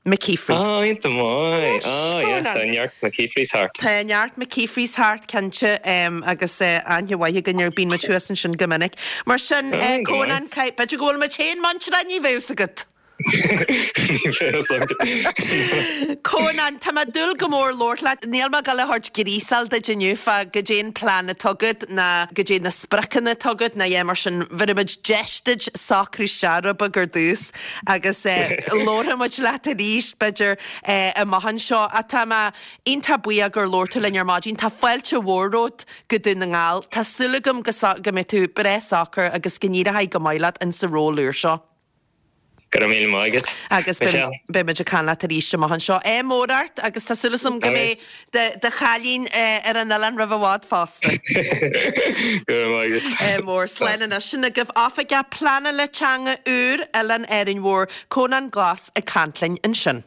McKeefry. Ah, iontach maith. Ah, yeah, tá neart McKeefreys thart. Tá neart McKeefreys thart, cinnte, agus aithne mhaith againn air, bíonn muid thuas ansin go minic. Mar sin, Cónán, b'fhéidir go bhfuil muid féin muinteartha, ní bheadh fhios agat. Níl fhios agat. Cónán, tá mé ag dúil go mór labhairt leat. Níl mé ag dul a thabhairt gríosáil duit inniu fá goidé an plean atá agat ná goidé na spriocanna atá agat ná a dhath mar sin. Bhéarfaidh muid deis duit socrú isteach rud beag ar dtús agus labharfaidh muid leat arís b'fhéidir amach anseo. Ach tá mé iontach buíoch gur labhair tú linn ar maidin. Tá fáilte mhór romhat go Dún na nGall. Tá súil agam go go mbeidh tú breá socair agus go n-éireoidh go maith leat in sa ról úr seo. Go raibh míle maith agat, Agus Michelle. beidh muid ag caint leat arís amach anseo. Ádh mór ort agus tá súil agam go mbeidh do chailín ar an oileán roimh i bhfad fosta. Go raibh maith agat. Ádh mór. Slán anois. Sin agaibh Oifigeach Pleanála Teanga úr Oileán Árainn Mhór, Cónán Glas ag caint linn ansin.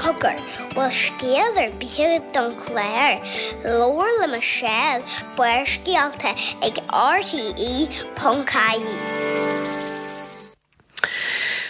Cogar, bhfuil scéal ar bith agat don chlár? Labhair le Michelle, Barrscéalta ag RTE.ie.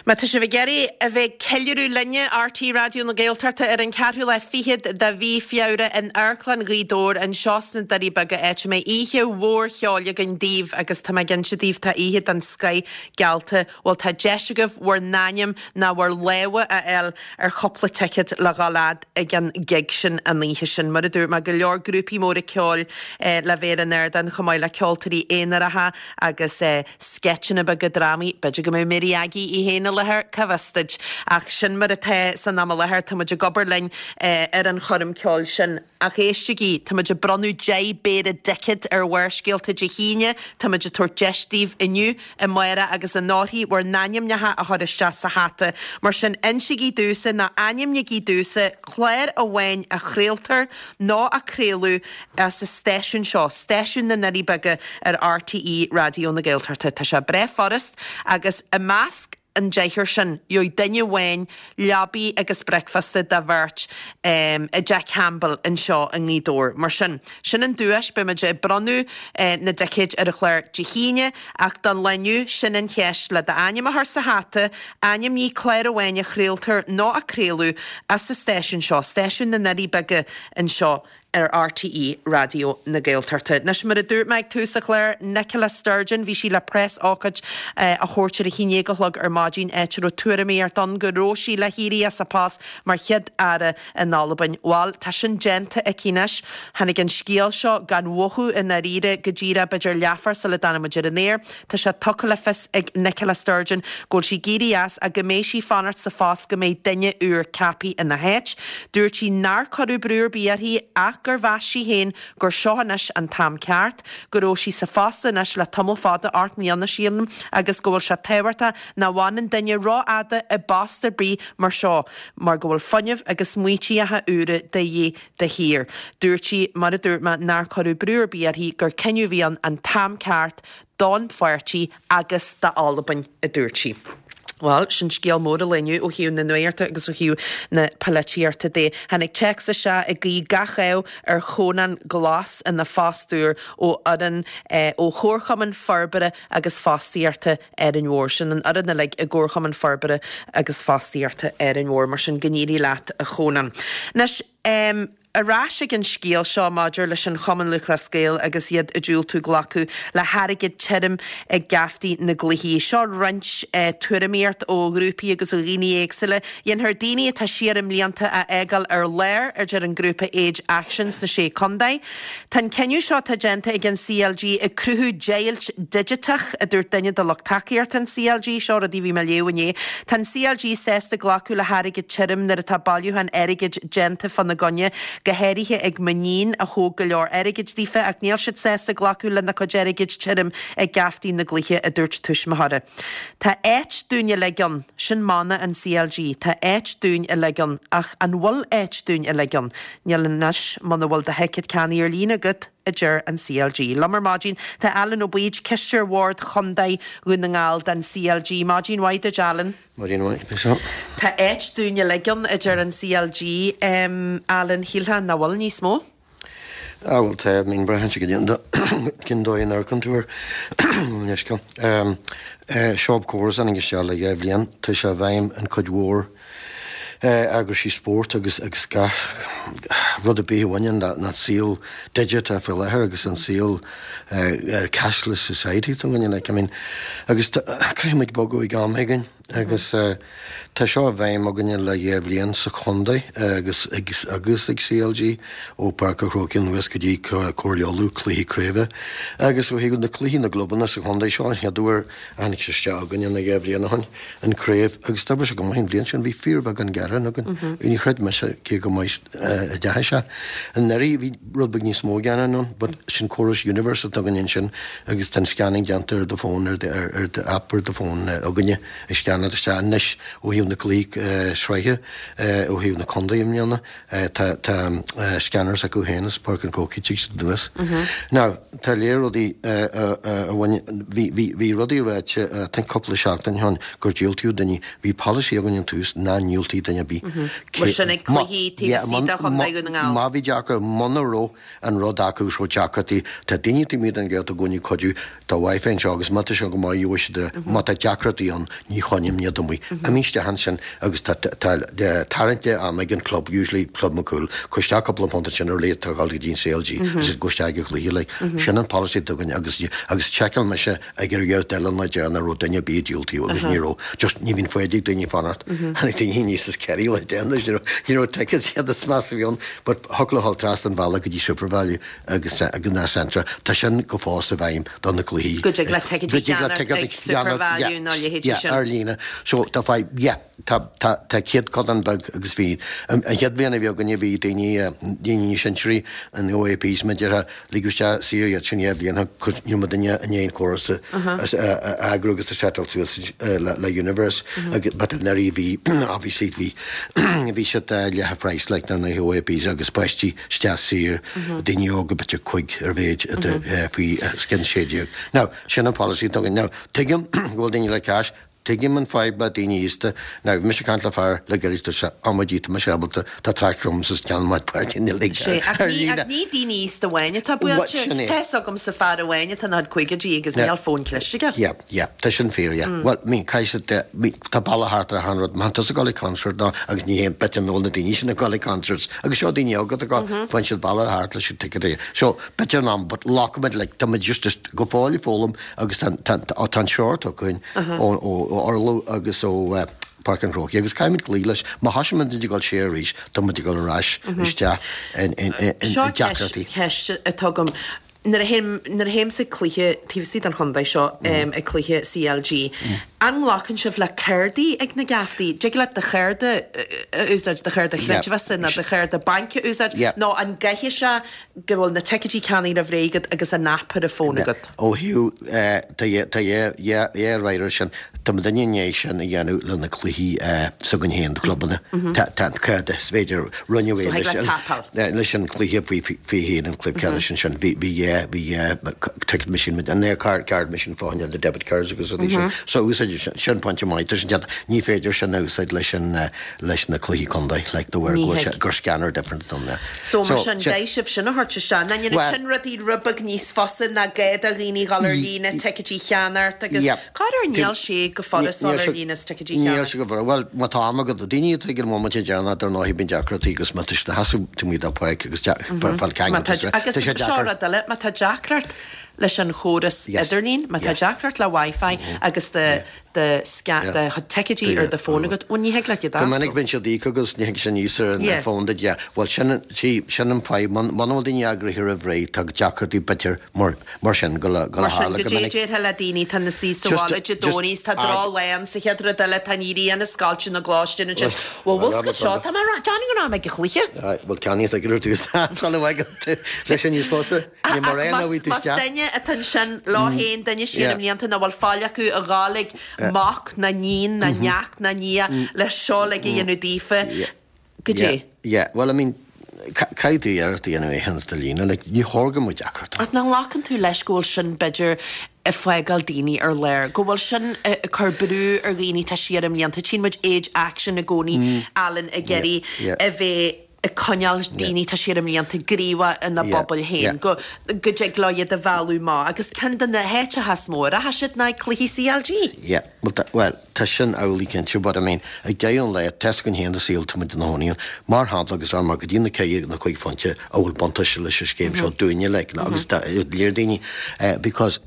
Má tá sibh ag iarraidh a bheith ag ceiliúradh linne, RTÉ Raidió na Gaeltachta, ar an cheathrú lá fichead de mhí Feabhra in Amharclann Ghaoth Dobhair anseo sna Doirí Beaga áit a mbeidh oíche mhór cheoil againn daoibh agus tá mé ag inse daoibh tá oíche den scoith geallta Bhuel tá deis agaibh bhur n-ainm ná bhur lámha a fháil ar chúpla ticéad le dhul fhad ag an gig sin an oíche sin. Mar a dúirt mé, go leor grúpaí móra ceoil le bheith ar an ardán chomh maith le ceoltóirí aonaracha agus sceitseanna beaga drámaí. B'fhéidir go mbeidh Mary Aggie í féin i láthair, cá bhfios duit. Ach sin mar atá san am i láthair, tá muid ag obair linn ar an choirm ceoil sin. Ach éistigí, tá muid ag bronnadh 10 bpéire dticéad ar Bharrscéalta Dé hAoine, tá muid ag tabhairt deis daoibh inniu, amárach agus anórthaidh bhur n-ainmneacha a chur isteach sa hata. Mar sin, insigí domhsa, nó ainmnigí domhsa, clár amháin a chraoltar nó a craoladh as an stáisiún seo, stáisiún na nDoirí Beaga ar RTÉ Raidió na Gaeltachta. Tá sé breá furast agus i measc an deichniúr sin, gheobhaidh duine amháin leabaidh agus bricfeasta do bheirt i dTeach Campbell anseo i nGaoth Dobhair. Mar sin, sin an duais, beidh muid ag bronnadh na dticéid ar an chlár Dé hAoine, ach don lá inniu, sin an cheist, le d'ainm a chur sa hata, ainmnigh clár amháin a chraoltar nó a craoladh as an stáisiún seo, stáisiún na nDoirí Beaga anseo ar RTÉ Raidió na Gaeltachta. Anois, mar a dúirt mé ag tús an chláir, Nicola Sturgeon, bhí sí le preas-ócáid a thabhairt ar a haon déag a chlog ar maidin, áit a raibh tuairimíocht ann go raibh sí le héirí as a post mar Chéad-Aire in Albain. Bhal, tá sin déanta aici anois. Tháinig an scéal seo gan mhothú i ndáiríre go díreach b'fhéidir leathuair sula dtáinig muid ar an aer. Tá sé tugtha le fios ag Nicola Sturgeon go bhfuil sí ag éirí as ach go mbeidh sí ag fanacht sa phost go mbeidh duine úr ceaptha ina háit. Dúirt sí nár cuireadh brú ar bith uirthi ach gur mheas sí féin gur seo anois an t-am ceart, go raibh sí sa phost anois le tamall fada, 8 mbliana sílim, agus go bhfuil sé tábhachtach nach bhfanann duine rófhada i bpost ar bith mar seo mar go bhfuil fuinneamh agus smaoitíocha úra de dhíth de shíor. Dúirt sí, mar a dúirt mé, nár cuireadh brú ar bith uirthi, gur cinneadh a bhí ann an t-am ceart don pháirtí agus d'Albain, a dúirt sí. Bhuel, sin scéal mór an lae inniu ó thaobh na nuachta agus ó thaobh na polaitíochta de. Tháinig téacs isteach ag guí gach ádh ar Chónán Glas ina phost úr ó fhoireann ó Chomharchumann Forbartha agus Fostaíochta Árainn Mhór. Sin an fhoireann uilig i gComharchumann Forbartha agus Fostaíochta Árainn Mhór. Mar sin, go n-éirí leat, a Chónáin. Anois, ar ais ag an scéal seo maidir leis an Chumann Lúthchleas Gael agus iad ag diúltú glacadh le hairgead tirim ag geaftaí na gcluichí. Seo roinnt tuairimíocht ó ghrúpaí agus ó dhaoine éagsúla. Dhéanfar daoine atá siar i mblianta a fhágáil ar lár, a deir an grúpa Age Action sna Sé Contae. Tá an cinneadh seo atá déanta ag an CLG ag cruthú deighilt digiteach, a dúirt duine de lucht tacaíochta an CLG. Seo rudaí a bhí mé a léamh inné. Tá an CLG sásta glacadh le hairgead tirim nuair atá bailiúchán airgid déanta fána gcoinne, go háirithe ag m'iníon a thóg go leor airgid daofa, ach níl siad sásta glacadh lena cuid airgid tirim ag geaftaí na gcluichí, a dúirt tuismitheoir. Tá áit dúinn uilig ann. Sin mana an CLG, tá áit dúinn uilig ann. Ach an bhfuil áit dúinn uilig ann? Níl anois, muna bhfuil do thicéad ceannaithe ar líne agat, a deir an CLG. Liom ar maidin tá Alan Ó Baoid, Cisteoir Bhord Chontae Dhún na nGall den CLG. Maidin mhaith duit, Alan. Maidin mhaith, Michelle. Tá áit dúinn uilig ann, a deir an CLG. Alan, shílfeá nach bhfuil níos mó? Ah bhuel tá, I mean braitheann sé go dtí cén dóigh a n-amharcann tú air. Leithscéal. Seo córas a tháinig isteach le 2 bhliain, tá sé i bhfeidhm an cuid mhór. Eagraisí spóirt agus agus gach rud ar bith a bhaineann le an saol digiteach faoi láthair agus an saol cashless society atá againne like I mean agus caithfidh muid bogadh ag am éigin agus tá seo i bhfeidhm againne le dhá bhliain sa chontae agus agus ag CLG ó Páirc an Chrócaigh anuas go dtí Comhairle Uladh cluichí craoibhe agus ó thaobh na cluichí na gclubanna sa chontae seo an chéad uair a tháinig sé isteach againne na dhá bhliain ó shin, an craobh, agus d'oibrigh sé go maith an bhliain sin, bhí fíorbheagán gearán againn. Ní chreid mise cé chomh maith a deachaigh sé. Anuraidh bhí rud beag níos mó gearán ann, but sin córas Universe atá againn ansin agus tá an scanning déanta ar do fón, ar ar do app ar do fón againne ag scannáil isteach anois ó thaobh na cluichí sraithe, ó thaobh na contae i mbliana. Tá tá scanners acu féin as Páirc an Chrócaigh tig siad anuas. Now tá léir rudaí a bhain bhí bhí bhí rudaí ráite I think cúpla seachtain ó shin gur diúltaíodh daoine bhí polasaí againn ón tús ná ndiúltaí duine ar bith. Mar sin ag cluichí taobh istigh de Chontae Dhún na nGall. Má bhí deacair muna raibh an rud acu agus raibh deacrachtaí tá daoine taobh amuigh den Ghaeltacht i gcónaí ag cuidiú Tá Wi-Fi anseo agus má tá sé go maith gheobhaidh siad é. Má tá deacrachtaí ann, ní choinním iad amuigh. Imigh isteach ansin agus tá tarraingt ama ag an club, usually Club McCool, cuir isteach cúpla punt ansin ar leith atá ag dul go dtí an CLG agus gabh isteach ag an chluiche like. Sin an policy atá againn agus agus sheiceáil mise ag ar ghabh eile an lá deireanach an raibh duine ar bith ag diúltú agus ní raibh. Just ní bhíonn foighid ag daoine fanacht. Tháinig daoine aníos as Kerry lá deireanach, ní raibh tickets iad is measa a bhí ann but thiocfadh leo dhul trasna an bhealaigh go dtí SuperValu agus ag an Centra, tá sin go fós i bhfeidhm do na cluichí. Go dtig leat ticéid a cheannacht ag SuperValu nó a leithéidí sin. Yeah, ar líne. So tá fadhb, yeah, tá, tá, tá céatadán beag agus bhí, an chéad bhliain a bhí againne bhí daoine, daoine níos sinsearaí, an OAPs mar a déarfá, ligeadh isteach saor iad sin dhá bhliain cos ní raibh muidinne i ndiaidh an córas a, a eagrú agus a settláil suas le, le Universe agus but anuraidh bhí, obviously bhí, bhí siad leath an phraghas like na OAPs agus páistí isteach saor, daoine óga b'fhéidir cuig ar mhéid faoi scian 16. Now, sin an policy atá againn. Now, tuigim go bhfuil daoine le cash, tuigim an fadhb le daoine aosta. Now, bhí mise ag caint le fear le gairid, dúirt sé, amaidí, tá mise ábalta, tá tractor agam is ceann maith páirce níl ag Sé, ach ní, ach ní daoine aosta amháin atá buailte. Sin é. Tá fhios agamsa fear amháin atá ina chuid caogaidí agus níl fón cliste aige. Yeah. Yeah, tá sin fíor, yeah. Bhuel, I mean, caithfidh siad, I mean, tá bealach thart ar achan rud. Má tá tusa ag dul ag concert ná, agus ní haon bit an ól na daoine sin ag dul ag concerts, agus seo daoine óga atá ag dul, faigheann siad bealach thart leis an ticket a, so, b'fhéidir in am, but glacfaimid, like, tá muid just, just go fóill ag foghlaim agus tá, tá, tá, tá an treoir tugtha againn ó, ó, ó Oirlo agus ó, eh, Páirc an Chrócaigh agus caithfimid cloí leis. Má thosaíonn muid ag dul siar arís, tá muid ag dul ar ais isteach in, in, in, in, Seo ceist, deacrachtaí. ceist atá agam. Nuair a théim, nuair a théimse ag cluiche taobh istigh den chontae seo, ag cluiche CLG, an nglacann sibh le cárdaí ag na geaftaí? Dtig leat do chárda a úsáid, do chárda chreidmheasa nó do chárda bainc a úsáid, nó an gcaithfidh sé go bhfuil na ticéidí ceannaithe roimh ré agat agus an app ar an bhfón agat? Ó thaobh, tá tá dhá réir sin. Tá muidinne i ndiaidh sin a dhéanamh le na cluichí s'againn féin, na clubanna. Tá tá an cárda, is féidir rinneadh é leis an leis an cluiche faoi faoi haon an cluiche ceannais ansin. Bhí bhí dhá bhí dhá ticket machine an é card card machine fá choinne na debit cards agus rudaí sin. So úsáid sin sin pointe maith tá sin déanta. Ní féidir sin a úsáid leis an leis na cluichí contae like de bharr go bhfuil sé gur scanner different don So mar sin caithfidh sibh sin a thabhairt isteach. Ná ndéanann sin rudaí rud beag níos fusa ná gá do dhaoine dhul ar líne ticéidí a cheannacht agus corruair níl sé go furast dul ar líne is ticéidí a cheannacht. Níl sé go furast. Bhuel, má tá am agat, daoine atá ag an bhomaite deireanach dar ndóigh bíonn deacrachtaí agus má tá siad ina sheasamh taobh amuigh de pháirc agus fáil ceangal tá sé deacair. Seo rud eile, má tá deacracht leis an chóras idirlín, má tá deacracht le Wi-Fi agus do do do chuid ticéidí ar do fón agat, bhuel ní thig leat iad a Go minic bíonn siad íoctha agus ní thig sin aníos ar an fón duit, yeah. Bhuel sin, see, sin an fadhb, muna bhfuil daoine eagraithe roimh ré, tá deacrachtaí b'fhéidir mar, mar sin go le, go le Mar sin, tharla go minic. Goidé déarfá le daoine atá ina suí sa bhaile Dé Domhnaigh is tá droch lá ann sa chéad rud eile tá an ghrian ag scoilteadh na gcoláistí ansin. Bhuel, bhfuil 's agat seo, tá mé ag rá, déanfaidh go raibh mé ag an chluiche. Aye, bhuel ceannaigh ticéad ar dtús sula bhfágann tú leis sin níos fusa. Ach más duine atá ansin leo féin, duine siar i mblianta nach bhfuil faill acu a ghabháil ag mac ná níon ná neacht ná nia le seo uilig a dhéanamh daofa, goidé. Yeah, well I mean, caithfidh tú iarracht a dhéanamh é a dhéanamh ar líne, like, ní chóir go mbeadh deacracht ann. Ach nach nglacann tú leis go bhfuil sin b'fhéidir ag fágáil daoine ar lár, go bhfuil sin ag cur brú ar dhaoine atá siar i mblianta, tchíonn muid Age Action i gcónaí, Alan, ag iarraidh a bheith. Ag coinneáil daoine tá siar i mblianta gníomhach ina bpobail féin, go dtig leo iad a mhealladh amach agus ceann de na háiteacha is mó a rachaidh siad ná ag cluichí CLG. Yeah, bhuel, tá sin amhlaidh cinnte, but I mean, ag deireadh an lae, tá's againn féin sa saol tá muid ina chónaí ann, mar shampla agus ar mar go dtí na ceithre nó 5 phointe a bhfuil buntáiste leis an scéim seo dúinne like, agus do léir daoine because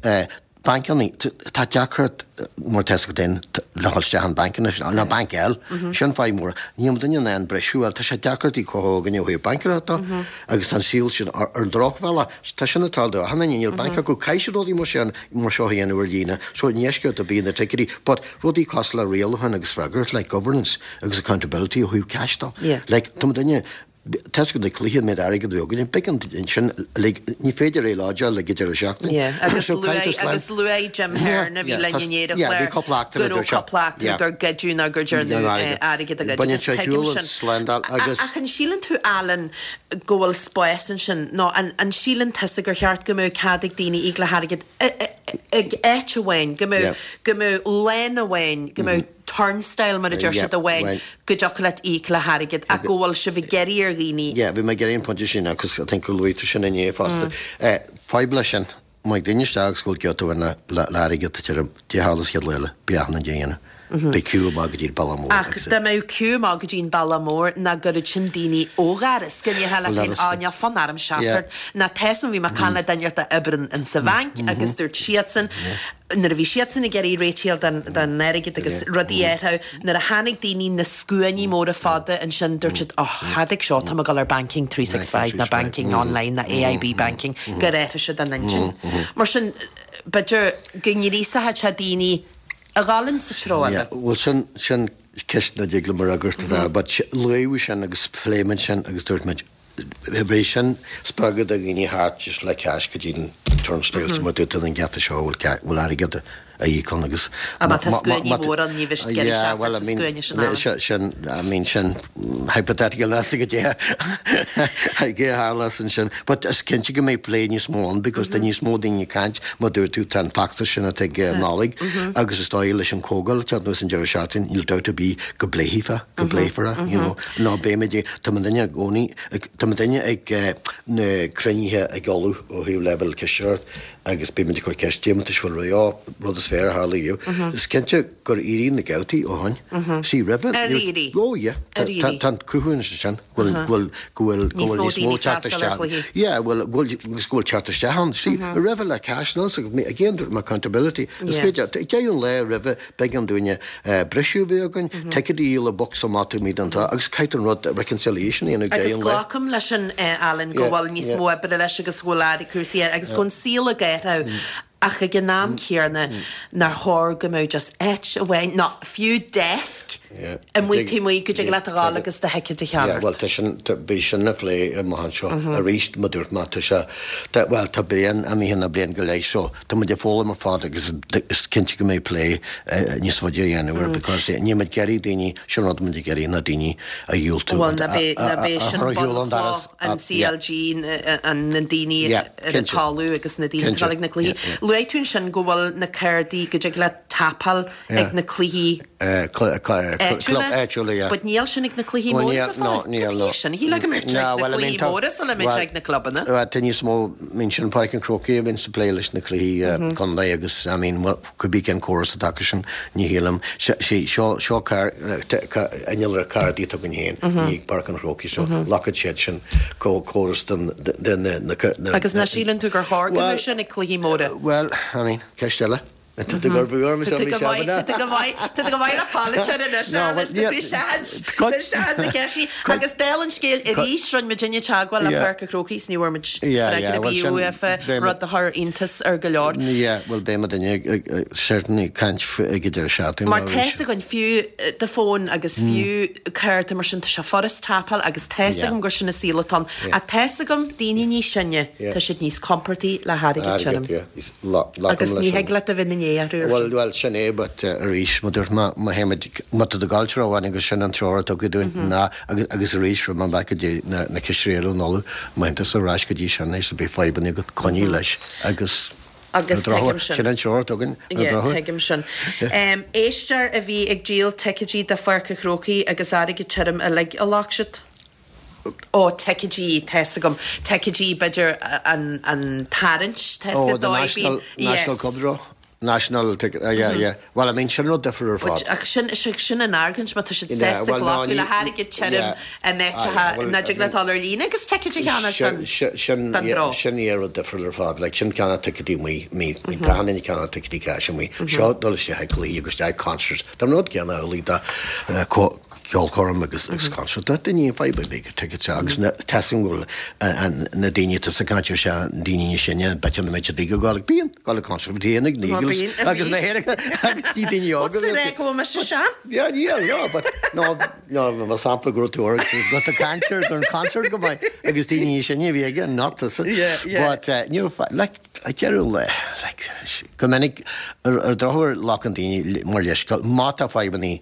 Bancanna, tá deacracht mar tá's agat féin le dhul isteach in banc anois, nó banc eile, sin fadhb mór. Níl muidinne in ann briseadh, bhuel tá sé deacair di cothú againne ó thaobh baincéireachta agus tá an saol sin ar an drochbhealach, tá sin ag tarlú do achan duine, níl banc acu, caithfidh siad rudaí mar sin, mar seo a dhéanamh ar líne, so i ndeisceart ar bith na ticéidí, but rudaí cosúil le rialachán agus freagracht, like governance agus accountability ó thaobh cash de, like tá muidinne, Tá's agat na cluichí an méid airgid a bhí againn, b'éigean ansin uilig, ní féidir é lodgeáil ag an deireadh seachtaine. Yeah, agus luaigh, agus luaigh Jim Hearn a bhí linn inné ar an chlár cúpla eachtra go raibh cúpla eachtra gur goideadh nó gur dearnadh airgead a ghoid Baineann agus sé tuigim shiúl an sin. slándáil agus. Ach an síleann tú, Alan, go bhfuil spás ansin nó an, an síleann tusa gur cheart go mbeadh cead ag daoine íoc le hairgead ag áit amháin, go mbeadh, go mbeadh lane amháin, go mbeadh turnstile mar a deir siad amháin go dtiocfadh leat íoc le hairgead ach go bhfuil sibh ag iarraidh ar dhaoine. Yeah, bhí mé ag iarraidh an pointe sin agus I think gur luaigh tú sin inné fosta. Fadhb leis sin, má ag duine isteach agus go bhfuil giota amháin le le airgead tá tirim, Dé tharla sa chéad lá eile, beidh achan duine a dhéanamh. Beidh queue amach go dtí an bealach mór Ach agus. dá mbeadh queue amach go dtí an bealach mór nach gcuirfeadh sin daoine ó dhoras go ndéarfá leat féin á níl fonn orm seasamh ná tá san bhí mé ag caint le duine a oibríonn in sa bhanc agus dúirt siadsan nuair a bhí siadsan ag iarraidh réitigh don airgead agus rudaí a athrú, nuair a tháinig daoine na scuainí móra fada ansin, dúirt siad, oh, thadaig seo, tá mé ag dul ar Banking 365 nó Banking Online nó AIB Banking, gur athraigh siad a n-intinn. Mar sin, b'fhéidir go ngríosódh sé daoine a dhul in sa treo eile. Yeah, bhuel sin, sin ceist nach dtig liom a fhreagairt, but luaíodh sin agus phléigh muid sin agus dúirt muid, Bheadh sin spreagadh do dhaoine theacht just le cash go dtí an turnstile so má dúirt tú an geata seo bhfuil bhfuil airgead a íoc ann agus Ah má tá scuainí mór ann ní bheidh siad ag iarraidh seasamh sa scuaine sin Alan. Sin I mean sin hypothetical níl a fhios agat goidé a tharlós ansin but is cinnte go mbeidh plé níos mó ann because tá níos mó daoine ag caint mar dúirt tú tá an feachtas sin atá ag Nollaig agus is dóigh leis an comhdháil atá anuas an deireadh seachtaine níl dabht ar bith go bpléifear go bpléifear é you know nó beimid ag Tá muidinne i gcónaí, tá muidinne ag na cruinnithe ag ullmhú ó thaobh leibhéal cisteoireacht agus bímid ag cur ceist deimhin bhfuil rud, ó, rud is fearr a tharla riamh. Is cinnte gur éirigh na gabhtaí ó shoin. See, roimhe, Ar éirigh? Ó yeah, Ar éirigh? tá an cruthúnas ansin go bhfuil, go bhfuil, go bhfuil, go Níos bhfuil mó níos mó daoine teacht freastal ar isteach. chluichí. Yeah, bhfuil, go bhfuil, agus go bhfuil teacht isteach ann. See, roimhe le cash, nó, again, dúirt mé accountability. Is Yeah. féidir, deireadh an lae roimhe, B'éigean dúinne briseadh a bheith againn, ticéid a dhíol i bocsa amach taobh amuigh den trá agus caithfidh an rud reconciliation a dhéanamh Agus deireadh an lae. glacaim leis sin, Alan, go bhfuil níos mó oibre leis agus go bhfuil aire cúrsaí air agus go bhfuil an saol ag athrú ach ag an am céanna nár chóir go mbeadh just áit amháin nó fiú desk amuigh taobh amuigh go dtig leat a dhul agus do thicéad a Yeah, cheannacht. bhuel tá sin, beidh sin le plé amach anseo arís mar dúirt mé tá sé, bhuel tá bliain imithe nó bliain go leith so Tá muid ag foghlaim ar fad agus is cinnte go mbeidh plé níos faide á dhéanamh air because níl muid ag iarraidh daoine, sin rud muid ag iarraidh ná daoine a dhiúltú Bhuel, ná b'é, a ná b'é sin chur ar shiúl an doras. bunchloch an CLG, na daoine ar an talamh agus na daoine atá ag na cluichí. Luaigh tú ansin go bhfuil na cártaí, go dtig leat tapáil ag na cluichí Club áitiúla, yeah. But níl sin ag na cluichí móra go fóill. No, níl, no. Cad é sin? Shílfeá go mbeadh sé ag na cluichí móra sula mbeadh sé ag na clubanna. Bhuel, tá níos mó, I mean, sin Páirc an Chrócaigh a bhíonns ag plé leis na cluichí contae agus, I mean, cibé cén córas atá acu sin, ní shílim. See, seo, seo car, innealra cártaí atá againn féin, ní ag Páirc an Chrócaigh, so glacfaidh siad sin córas den, den, na, na. Agus nach síleann tú gur chóir go mbeadh sin ag cluichí móra? Bhuel, I mean, ceist eile. Tá tú ag brú orm Tá tú go maith, tá tú go maith, tá tú go maith le polaiteoir anois, Alan, tá tú seans, tá seans na ceistí. Agus dála an scéil arís, rinne muidinne teagmháil le Páirc an Chrócaigh is ní bhfuair muid freagra ar bith uafa, rud a chuir iontas ar go leor. Yeah, bhuel beidh muidinne certainly ag caint ag an deireadh seachtaine Mar tá's againn, fiú do fón agus fiú cárta mar sin, tá sé furast tapáil agus tá's agam gur sin an saol atá ann. Ach tá's agam, daoine níos sine, tá siad níos compordaí le hairgead tirim. Agus ní thig leat a bheith ina ndiaidh orthu ar Bhuel, bhuel, sin é, but arís, mar dúirt mé, má théimid, má tá tú ag gabháil treo amháin agus sin an treoir a tugadh dúinn ná, agus, agus arís, raibh mé back go dtí na, na cistirí eile in Uladh, má théann tusa ar ais go dtí sin é, so beidh fadhbanna agat, coinnigh leis agus Agus ar an drochuair, tuigim sin. sin an treoir a tugann, ar an Yeah, drochuair. tuigim sin. Éisteoir a bhí ag díol ticéidí do Pháirc an Chrócaigh agus airgead tirim uilig a ghlac siad. Ó, ticéidí, tá's agam. Ticéidí, b'fhéidir an, an tarraingt, tá's Oh, agat the dóigh, national, bíonn, national yes. cup draw. National ticket, ah yeah, yeah. Bhuel, I mean, sin rud difriúil ar fad. Ach sin, sin an argóint, má tá siad Yeah, sásta well, no, glacadh ní, le hairgead tirim yeah. in Ah, áiteacha yeah, well, nach dtig leat dul ar líne agus ticéid a cheannach don, Sin, don yeah, draw. sin yeah rud difriúil ar fad. Like, sin ceannach ticéidí amuigh, mí, mí, tá an duine ceannach ticéidí cash amuigh. Seo dul isteach ag cluichí agus isteach ag concerts. Tá an rud céanna amhlaidh do, eh, co- ceolchoirm agus agus concert. Tá daoine ag fadhb ar bith go tickets agus na tá a fhios agam go bhfuil na daoine atá ag caint ar seo na daoine níos sine b'fhéidir nach mbeidh siad ag gabháil ag bíonn gabháil ag concert bhí ag na Eagles agus na hÉireann agus ní daoine óga. What's the go mbeidh sé sean? Yeah, yeah, yeah, but no, no, mar sampla go raibh tú ar go tá concert an concert go maith agus daoine níos sine a bhí aige not tusa. Yeah, yeah. But uh, ní raibh like ag deireadh an lae, like, go minic, ar ar drochuair glacann daoine mar leithscéal, má tá fadhbanna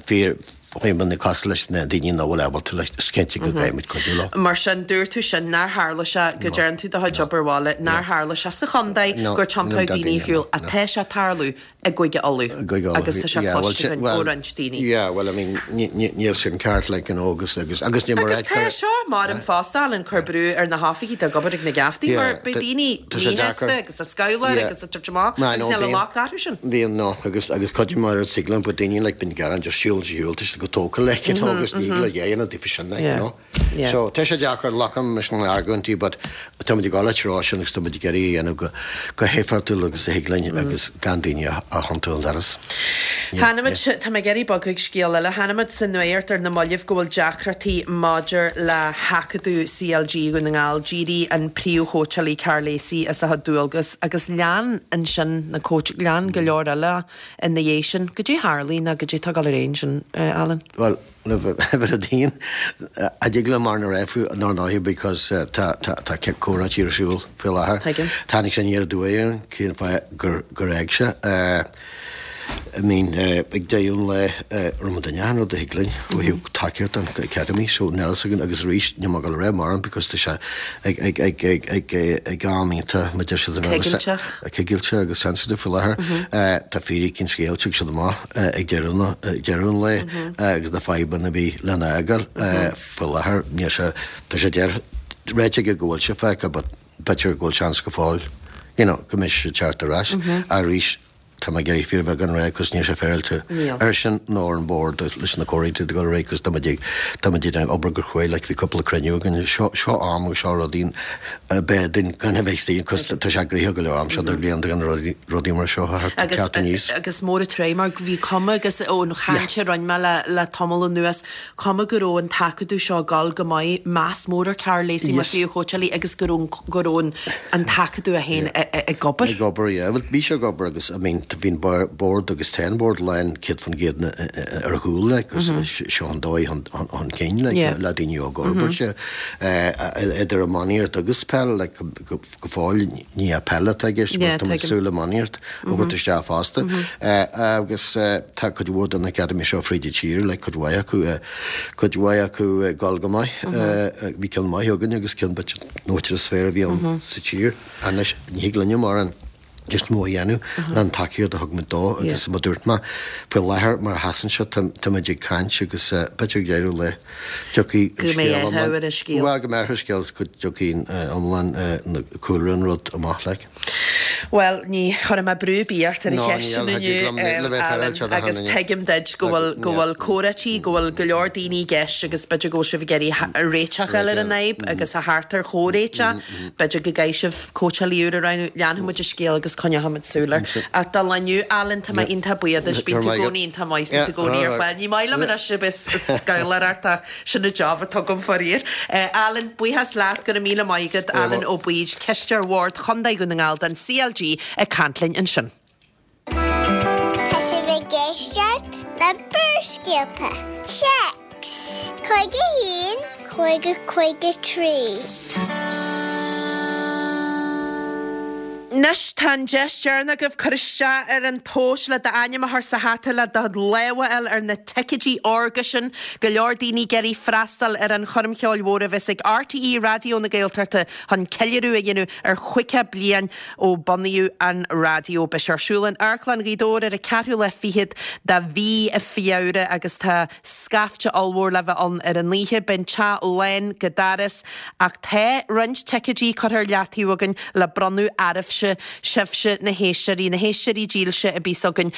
fíor fadhbanna cosúil leis na daoine nach bhfuil ábalta leis, is cinnte go gcaithfidh muid cuidiú leo. Mar sin, dúirt tú sin nár tharla sé, go dtearn tú do chuid obair bhaile, nár tharla sé sa chontae gur tiompaíodh daoine ar shiúl, ach tá sé ag tarlú i gCúige Uladh agus tá sé cloiste againn ó roinnt daoine. Yeah, well, I mean, níl sin ceart, like, you know, agus, agus, agus ní mar Agus tá seo, maram fosta, Alan, cur brú ar na hoifigigh atá ag obair ag na geaftaí mar beidh daoine míshásta agus ag scabhláil agus ag tabhairt amach agus níl an locht orthu sin. Bíonn, no, agus, agus cuid mar a thig liom, but daoine, like, bíonn gearán just siúl, siúl, tá siad go tógtha, like, you know, agus ní le dhéanamh daofa sin, like, you know. So, tá sé deacair, glacaim leis na argóintí but tá muid ag dul treo sin agus tá muid ag iarraidh a dhéanamh go go héifeachtúil agus a thig linn agus gan daoine a thiontú ón doras. Chonaic muid, tá mé ag iarraidh bogadh ag scéal eile, chonaic muid sa nuacht ar na mallaibh go bhfuil deacrachtaí maidir le hAcadamh CLG Dhún na nGall. D'éirigh an príomhchóitseálaí Karl Lacey as a chuid dualgas agus lean ansin na cóits, lean go leor eile ina dhiaidh sin. Goidé tharlaigh nó goidé atá ag dul ar aghaidh ansin, Alan? Bhuel, le bheith a daon, a dtig liom mar na raibh nár ndóigh because tá tá tá comhráití ar siúl faoi láthair. Tuigim. Tháinig sé aniar aduaidh orainn cén fáth gur gur fhág sé. I mean ag deireadh an lae rinne muid achan rud a thig linn ó thaobh tacaíocht don Academy so níl a fhios againn agus arís níl mé ag dul a rá mórán because tá sé ag ag ag ag ag ag am iontach mar a deir siad Coigilteach. Coigilte agus sensitive faoi láthair. Tá fíric an scéil tiocfaidh siad amach. ag deireadh an lae agus na fadhbanna a bhí lena fhágáil faoi láthair níl sé tá sé deir ráite aige go bhfuil sé fágtha but b'fhéidir go bhfuil seans go fóill you know go mbeidh sé teacht ar ais arís tá mé ag iarraidh fíorbheagán a rá cos níl sé féaráilte airsean nó ar an bord leis na comhráití ag dul ar aghaidh cos tá muid ag tá muid ag obair go cruaidh like bhí cúpla cruinniú againn seo seo am agus seo rudaí b'fhearr dúinn gan a bheith istigh cos tá sé gnoitheach go leor am seo do bhliain gan rudaí mar seo a theacht aníos. Agus mór an truaigh mar bhí cuma agus ón chaint a rinne mé le le tamall anuas, cuma go raibh an t-acadamh seo ag dul go maith, meas mór ar Karl Lacey mar phríomhchóitseálaí agus go raibh go raibh an an t-acadamh é féin ag obair. Ag obair, yeah. Bhuel bhí sé ag obair agus I mean bhí an bord agus tá an bord lán 100% ar a chúl like agus seo an dóigh chun cinn like le daoine óga a fhorbairt. Idir iománaíocht agus peil, like, go fóill ní hea peil atá i gceist, but tá muid ag súil iománaíocht a thabhairt isteach fosta. Agus tá cuid mhór den Academy seo fríd an tír, like, cuid mhaith acu, cuid mhaith acu ag dul go maith. Bhí ceann maith againn agus ceann b'fhéidir nó is fearr a bhí ann sa tír. Anois ní thig linne mórán. níos mó a dhéanamh ná an tacaíocht a thug muid dó agus mar a dúirt mé, faoi láthair mar a sheasann sé tá muid ag caint agus b'fhéidir ag deireadh an lae tiocfaidh an scéal iomlán, bhuel go mbeidh athrú ar an scéal go dtiocfaidh iomlán cúlra an rud amach like. Bhuel ní chuirfidh mé brú ar bith ort ar an cheist sin inniu Alan agus tuigim duit go bhfuil go bhfuil comhráití, go bhfuil go leor daoine i gceist agus b'fhéidir go bhfuil sibh ag iarraidh réiteach a fháil ar an fhadhb agus a theacht ar chomhréiteach. B'fhéidir go gcaithfidh sibh cóitseálaí úr a roghnú. Leanfaidh muid an scéal agus coinneoidh muid súil air. Ach do lá inniu, Alan, tá mé iontach buíoch duit. Bíonn tú i gcónaí iontach maith, bíonn tú i gcónaí ar fáil. Ní maith liom anois a bheith ag scabhláireacht ach sin an job atá agam faraor. Alan, buíochas leat, go raibh míle maith agat. Alan Ó Baoid, Cisteoir Bhord Chontae Dhún na nGall don CLG ag caint linn ansin. Tá sibh ag éisteacht le Barrscéalta. Téacs 51 50 53. Anois tá an deis deireanach agaibh cur isteach ar an tomhas le d'ainm a chur sa hata le do lámh a fháil ar na ticéidí órga sin. Go leor daoine ag iarraidh freastal ar an choirm cheoil mhór a bheas ag RTÉ Raidió na Gaeltachta chun ceiliúradh a dhéanamh ar chaoga bliain ó bunaíodh an raidió. Beidh sé ar siúl in Amharclann Ghaoth Dobhair ar an ceathrú lá fichead de mhí Feabhra agus tá scaifte ollmhór le bheith ann ar an oíche. Beidh an teach lán go doras ach tá roinnt ticéidí curtha ar leataobh againn le bronnadh oraibhse, sibhse na héisteoirí, na héisteoirí dílse a bíos againn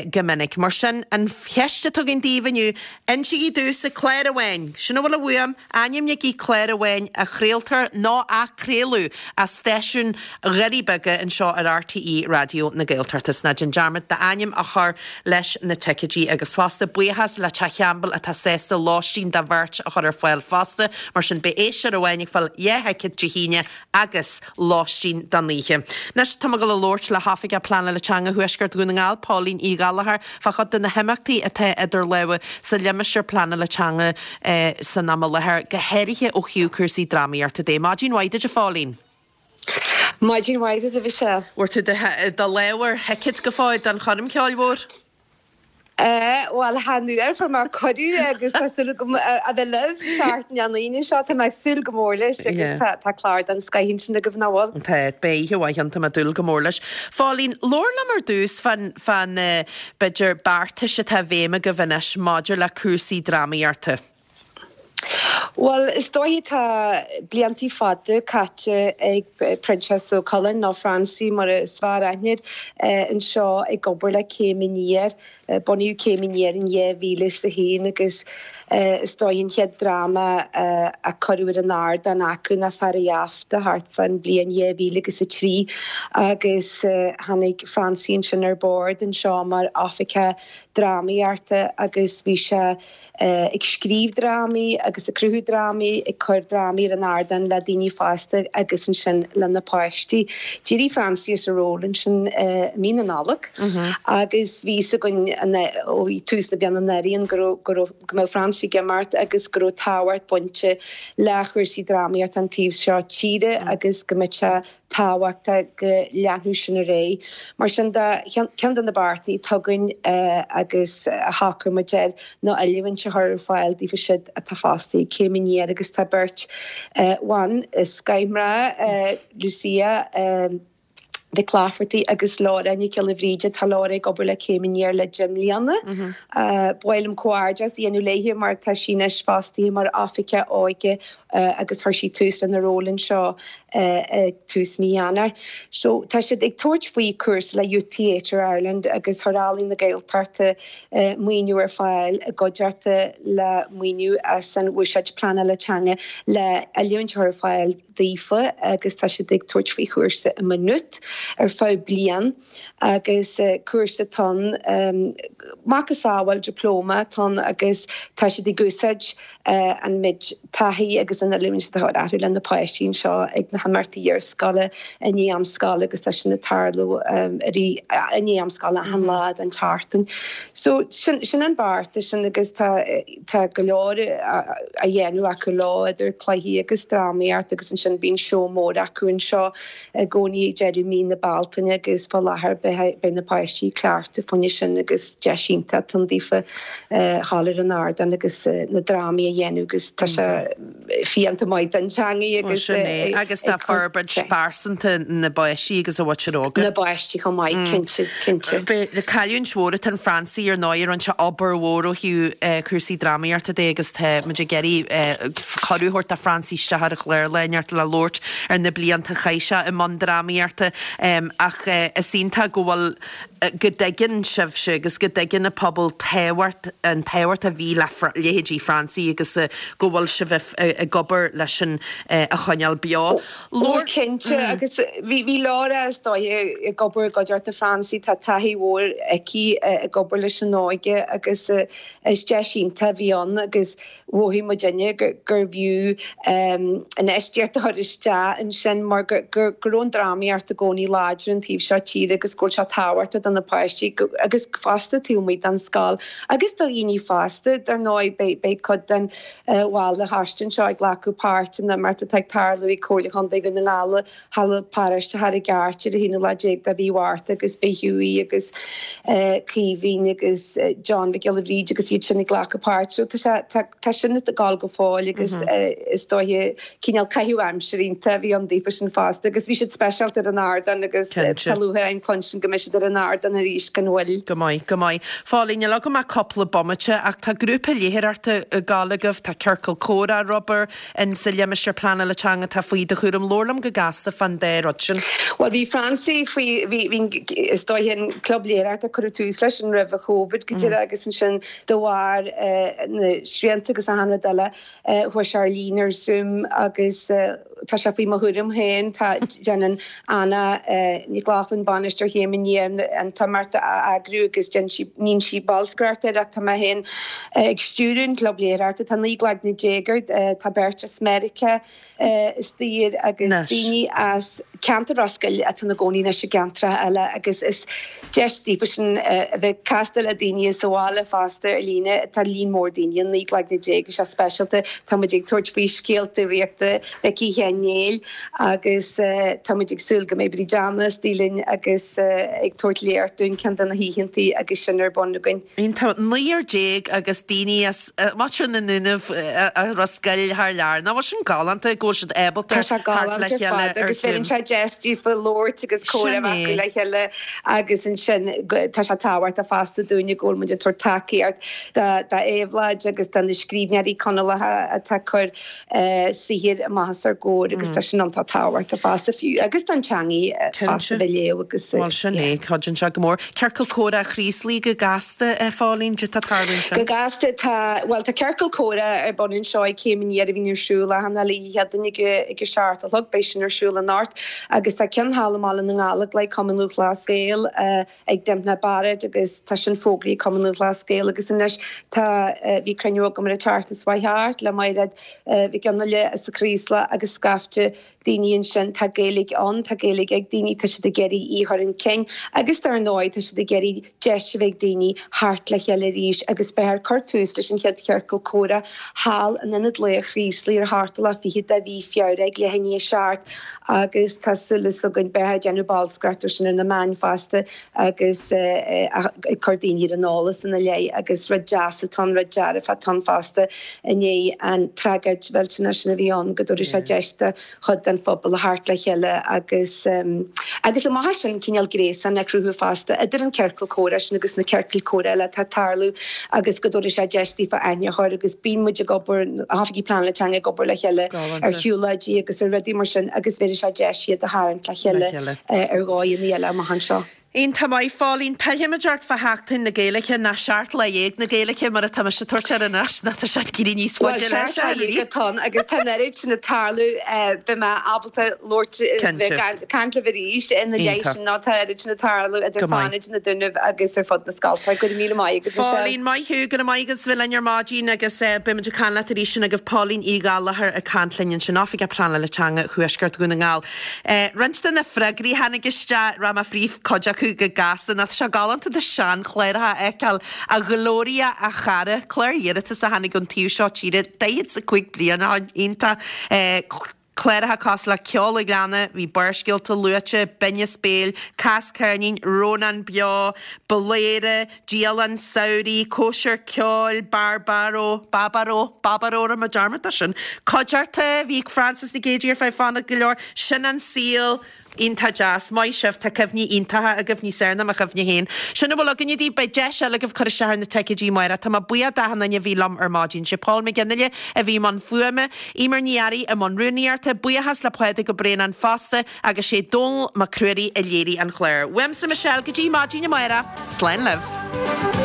go minic. Mar sin, an cheist atá againn daoibh inniu, insígí domhsa clár amháin, sin a bhfuil uaim, Ainmnígí clár amháin a chraoltar nó a craoladh as stáisiún Dhoirí Beaga anseo ar RTÉ Raidió na Gaeltachta. 's ná déan dearmad d'ainm a chur leis na ticéidí. Agus fosta, buíochas le Teach Champbell atá sásta lóistín do bheirt a chur ar fáil fosta. Mar sin, beidh éisteoir amháin ag fáil 2 thicéad Dé hAoine agus lóistín don oíche. Anois tá mé ag dul a labhairt le hOifigeach Pleanála Teanga Thuaisceart Dhún na nGall, Póilín Uí Ghallchóir, fá chuid de na himeachtaí atá idir lámha sa limistéar pleanála teanga san am i láthair, go háirithe ó thaobh cúrsaí drámaíochta de. Maidin mhaith duit, a Phóilín. Maidin mhaith duit, a Mhichelle. Bhfuair tú do lámh ar thicéad go fóill don choirm cheoil mhór? Bhuel, chan fhuair, fuair mé cuireadh agus tá súil agam a bheith libh seachtain an Aoine seo. Tá mé ag súil go mór leis agus tá clár den scoith ansin agaibh, nach bhfuil? Tá, beidh oíche mhaith ann, tá mé ag dúil go mór leis. Phóilín, labhair liom ar dtús fán, fá na, b'fhéidir, beartais atá i bhfeidhm agaibh anois maidir le cúrsaí drámaíochta. Bhuel, is dóiche tá bliantaí fada caite ag Proinsias Ó Coileáin, nó Francie mar is fearr aithne air, anseo ag obair le Céim Aniar. Bunaíodh Céim Aniar in 2001 agus is dóiche an chéad dráma a cuireadh ar an ardán acu ná Fear an Gheafta thart fán bhliain 2003 agus tháinig Francie ansin ar bord anseo mar oifigeach drámaíochta agus bhí sé ag scríobh drámaí agus ag cruthú drámaí, ag cur drámaí ar an ardán le daoine fásta agus ansin le na páistí. D'éirigh Francie as a ról ansin i mí na Nollag agus bhí fhios againn ó tús na bliana anuraidh go raibh, go raibh, go mbeadh Francie ag imeacht agus go raibh tábhacht bainte le chúrsaí drámaíochta an taobh seo tíre agus go mbeadh sé tábhachtach go leanfadh sin ar aghaidh. Mar sin de, ceann de na beartaí atá againn agus a shocraigh muid air ná oiliúint a chur ar fáil daofa siúd atá fostaithe ag Céim Aniar agus tá beirt bhan scoth mná, Lucia Mhic Laifeartaigh agus Laura Nic Giolla Bhríde. Tá Laura ag obair le Céim Aniar le deich mbliana. Ba mhaith liom comhghairdeas a dhéanamh léi mar tá sí anois fostaithe mar Oifigeach Óige agus chuir sí tús lena ról anseo ag tús mí Eanáir. So tá siad ag tabhairt faoi cúrsa le Youth Theatre Ireland agus chuir Ealaín na Gaeltachta maoiniú ar fáil i gcuideachta le maoiniú as an Bhuiséad Pleanála Teanga le oiliúint a chur ar fáil daofa agus tá siad ag tabhairt faoi chúrsa i Maynooth ar feadh bliain agus cúrsa atá ann macasamhail dioplóma atá ann agus tá siad ag úsáid an méid taithí agus an oiliúint atá orthu le na páistí anseo ag na himeachtaí iarscoile i ndiaidh am scoile agus tá sin ag tarlú i ndiaidh am scoile achan lá den tseachtain. So sin sin an beartas sin agus tá tá go leor á dhéanamh acu leo idir cluichí agus drámaíocht agus ansin bíonn seó mór acu anseo i gcónaí ag deireadh mí na Bealtaine agus fá láthair beidh na páistí ag cleachtadh fá choinne sin agus deis iontach atá ann daofa dhul ar an ardán agus na drámaí a dhéanamh agus tá sé fiánta maith don teangaidh agus Sin é, agus tá forbairt phearsanta na bpáistí agus a mhuintir óga. Na bpáistí chomh maith, cinnte, cinnte. Cailliúint mhór atá in Francie ar ndóigh, rinne sé obair mhór ó thaobh cúrsaí drámaíochta de agus tá muid ag iarraidh cuireadh a thabhairt do Francie isteach ar an chlár lá inteacht le labhairt ar na blianta a chaith sé i mbun drámaíochta ach is iontach go bhfuil go dtuigeann sibhse agus go dtuigeann an pobal tábhacht an tábhacht a bhí le leithéidí Francie agus go bhfuil sibh ag obair leis sin a choinneáil beo. Ó cinnte agus bhí Laura is dóiche ag obair i gcuideachta Francie, tá taithí mhór aici ag obair leis an óige agus is deis iontach a bhí ann agus mhothaigh muidinne gurbh fhiú infheistíocht a chur isteach ansin mar go raibh an drámaíocht i gcónaí. láidir an taobh seo tíre agus go bhfuil sé tábhachtach do na páistí agus fosta taobh amuigh den scoil agus do dhaoine fásta. Dar ndóigh beidh cuid den bhaill de choiste anseo ag glacadh páirt in imeacht atá ag tarlú ag Comhairle Chontae Dhún na nGall Halla Paráiste Charraig Airt ar an haonú lá déag de mhí Mhárta agus beidh Hughie agus Caoimhín agus John Mhic Giolla Bhríde agus iad sin ag glacadh páirt. So tá sé, tá, tá sin ag gabháil go fóill agus is dóiche cineál caitheamh aimsire iontach a bhí ann daofa sin fosta agus bhí siad speisialta ar an ardán agus tá lúcháir orainn cluinstin go mbeidh siad ar an ardán arís gan mhoill. Go maith, go maith. Phauline, níl agam ach cúpla bomaite ach tá grúpa léitheoireachta ag gabháil agaibh, tá ciorcal comhrá ar obair, in sa limistéar pleanála teanga atá faoi do chúram. Labhair liom go gasta fán dá rud sin. Bhuel, bhí Francie faoi, bhí, bhí, is dóiche an club léitheoireachta, cuireadh tús leis sin roimh an Chóivid go díreach agus ansin de bharr na srianta agus achan rud eile, chuaigh sé ar líne ar Zoom agus tá sé faoi mo chúram féin. Tá, déanann Anna Nic Lochlainn, bainisteoir Chéim Aniar, an t-imeacht a eagrú agus déanann sí, níonn sí bolscaireacht air ach tá mé féin ag stiúradh an chlub léitheoireachta. Tá 19 gcloigne air, tá beirt as Meiriceá istigh air agus daoine as ceantar Ros Goill atá ina gcónaí anois i gceantracha eile agus is deis daofa sin a bheith ag castáil le daoine as an bhaile fosta ar líne. Tá líon mór daoine, 19 gcloigne, tá sé speisialta. Tá muid ag tabhairt faoi scéalta draíochta Mhicí Sheáin Néill agus tá muid ag súil go mbeidh Bríd Anna istigh linn agus ag tabhairt léacht dúinn ceann de na hoícheantaí agus sin ar bun againn. Iontach. 19 agus daoine as muintir na nDúnaibh as Ros Goill thar lear. Nach bhfuil sin galánta go bhfuil siad ábalta Tá sé theacht le galánta ar chéile fad ar agus bheireann Zoom. sé deis daofa labhairt agus comhrá Sin a bheith acu é. le chéile agus ansin tá sé tábhachtach fosta dúinne go bhfuil muid ag tabhairt tacaíocht d'Éabhlóid agus do na scríbhneoirí Conallacha atá ag cur saothair amach os ár gcomhair agus tá sin iontach tábhachtach fosta fiú agus don teangaidh fosta Cinnte. bheith léamh agus Bhuel sin yeah. é, cuidíonn sé go mór. Ciorcal Comhrá Chraoslaigh go gasta, a Phauline, cad tá ag tarlú ansin? Go gasta tá, bhuel tá ciorcal comhrá ar bun anseo ag Céim Aniar a bhíonn ar siúl achan uile oíche Chéadaoin ag ag a seacht a chlog, beidh sin ar siúl anocht agus tá ceann thall i mBaile na nGallóglach ag Cumann Lúthchleas Gael, ag Dympna Barrett agus tá sin fógraithe ag Cumann Lúthchleas Gael agus anois tá, bhí cruinniú agam ar an tseachtain seo chuaigh thart le Mairéad Mhic Fhionnghaile as an Chraoslach agus scaifte daoine ansin, tá Gaeilge ann, tá Gaeilge ag daoine, tá siad ag iarraidh í a chur chun cinn agus dar ndóigh tá siad ag iarraidh deis a bheith ag daoine theacht le chéile arís agus beifear ag cur tús leis an chéad chiorcal comhrá thall in Ionad Lae an Chraoslaigh ar an seachtú lá fichead de mhí Feabhra ag leath i ndiaidh a seacht. agus tá súil againn beifear ag déanamh bolscaireacht ar sin ar na meáin fosta agus ag cur daoine ar an eolas ina leith agus rud deas atá ann, rud dearfach atá ann fosta i ndiaidh an tragóid mhillteanach sin a bhí ann go dtabharfaidh sé deis do chuid den phobal a theacht le chéile agus agus amach as sin cineál gréasán a chruthú fosta idir an ciorcal comhrá sin agus na ciorcail comhrá eile atá ag tarlú agus go dtabharfaidh sé deis daofa aithne a chur agus bíonn muid ag obair, na hoifigigh pleanála teanga ag obair le chéile. ar shiúlóidí agus ar rudaí mar sin agus bhéarfaidh sé deis iad a tharraingt le chéile ar dhóigheanna eile amach anseo. Iontach maith, Phauline. Pillfimid ort fá Sheachtain na Gaeilge, nó 17 Lá na Gaeilge mar atá mise ag tabhairt air anois, nó tá sé ag éirí níos Bhuel, faide leis, 17 Lá a atá ann agus tá an oiread sin ag tarlú, beidh mé ábalta labhairt, Cinnte. bheith ag caint libh arís ina leith Iontach. sin nó tá an oiread sin ag tarlú idir Go maith. Fánaid, na Dúnaibh agus ar fud na scolta. Go raibh míle maith agat, Michelle. Phauline, maith thú, go raibh maith agat as bheith linn ar maidin agus beidh muid ag caint leat arís sin agaibh Pauline Uí Ghallchóir ag caint linn ansin, Oifigeach Pleanála Teanga Thuaisceart Dhún na nGall. Roinnt de na freagraí a tháinig isteach, rachaidh mé fríd cuid acu go gasta, nó tá sé galánta do seanchláracha a fheiceáil, a Ghloria a chara, clár iarratas a tháinig ón taobh seo tíre 45 bliain ó shin, iontach. Cláracha cosúil le Ceol an Ghleanna, bhí Barrscéalta luaite, Binneas Béil, Cas Ceirnín, Rónán Beo, Bladhaire, Dialann Samhraidh, Cóisir Ceoil, Barbaro, Babaró, Babaró, rinne mé dearmad de sin, Cuideachta, bhí Frances Nic Géadaigh ar feadh fánach go leor, Sin an Saol, Iontach deas. Maith sibh, tá cuimhní iontacha agaibh, níos fearr ná mo chuimhne féin. Sin a bhfuil againne daoibh, beidh deis eile agaibh cur isteach ar na ticéidí amárach. Tá mé buíoch d'achan duine a bhí liom ar maidin. Sé Paul McGinley a bhí i mbun fuaime, Eimear Ní Fhearraigh i mbun rúnaíochta, buíochas le Pádraig Ó Braonáin fosta agus sé Dónall Mac Ruairí a léirigh an clár. Uaimse Michelle go dtí maidin amárach, slán libh.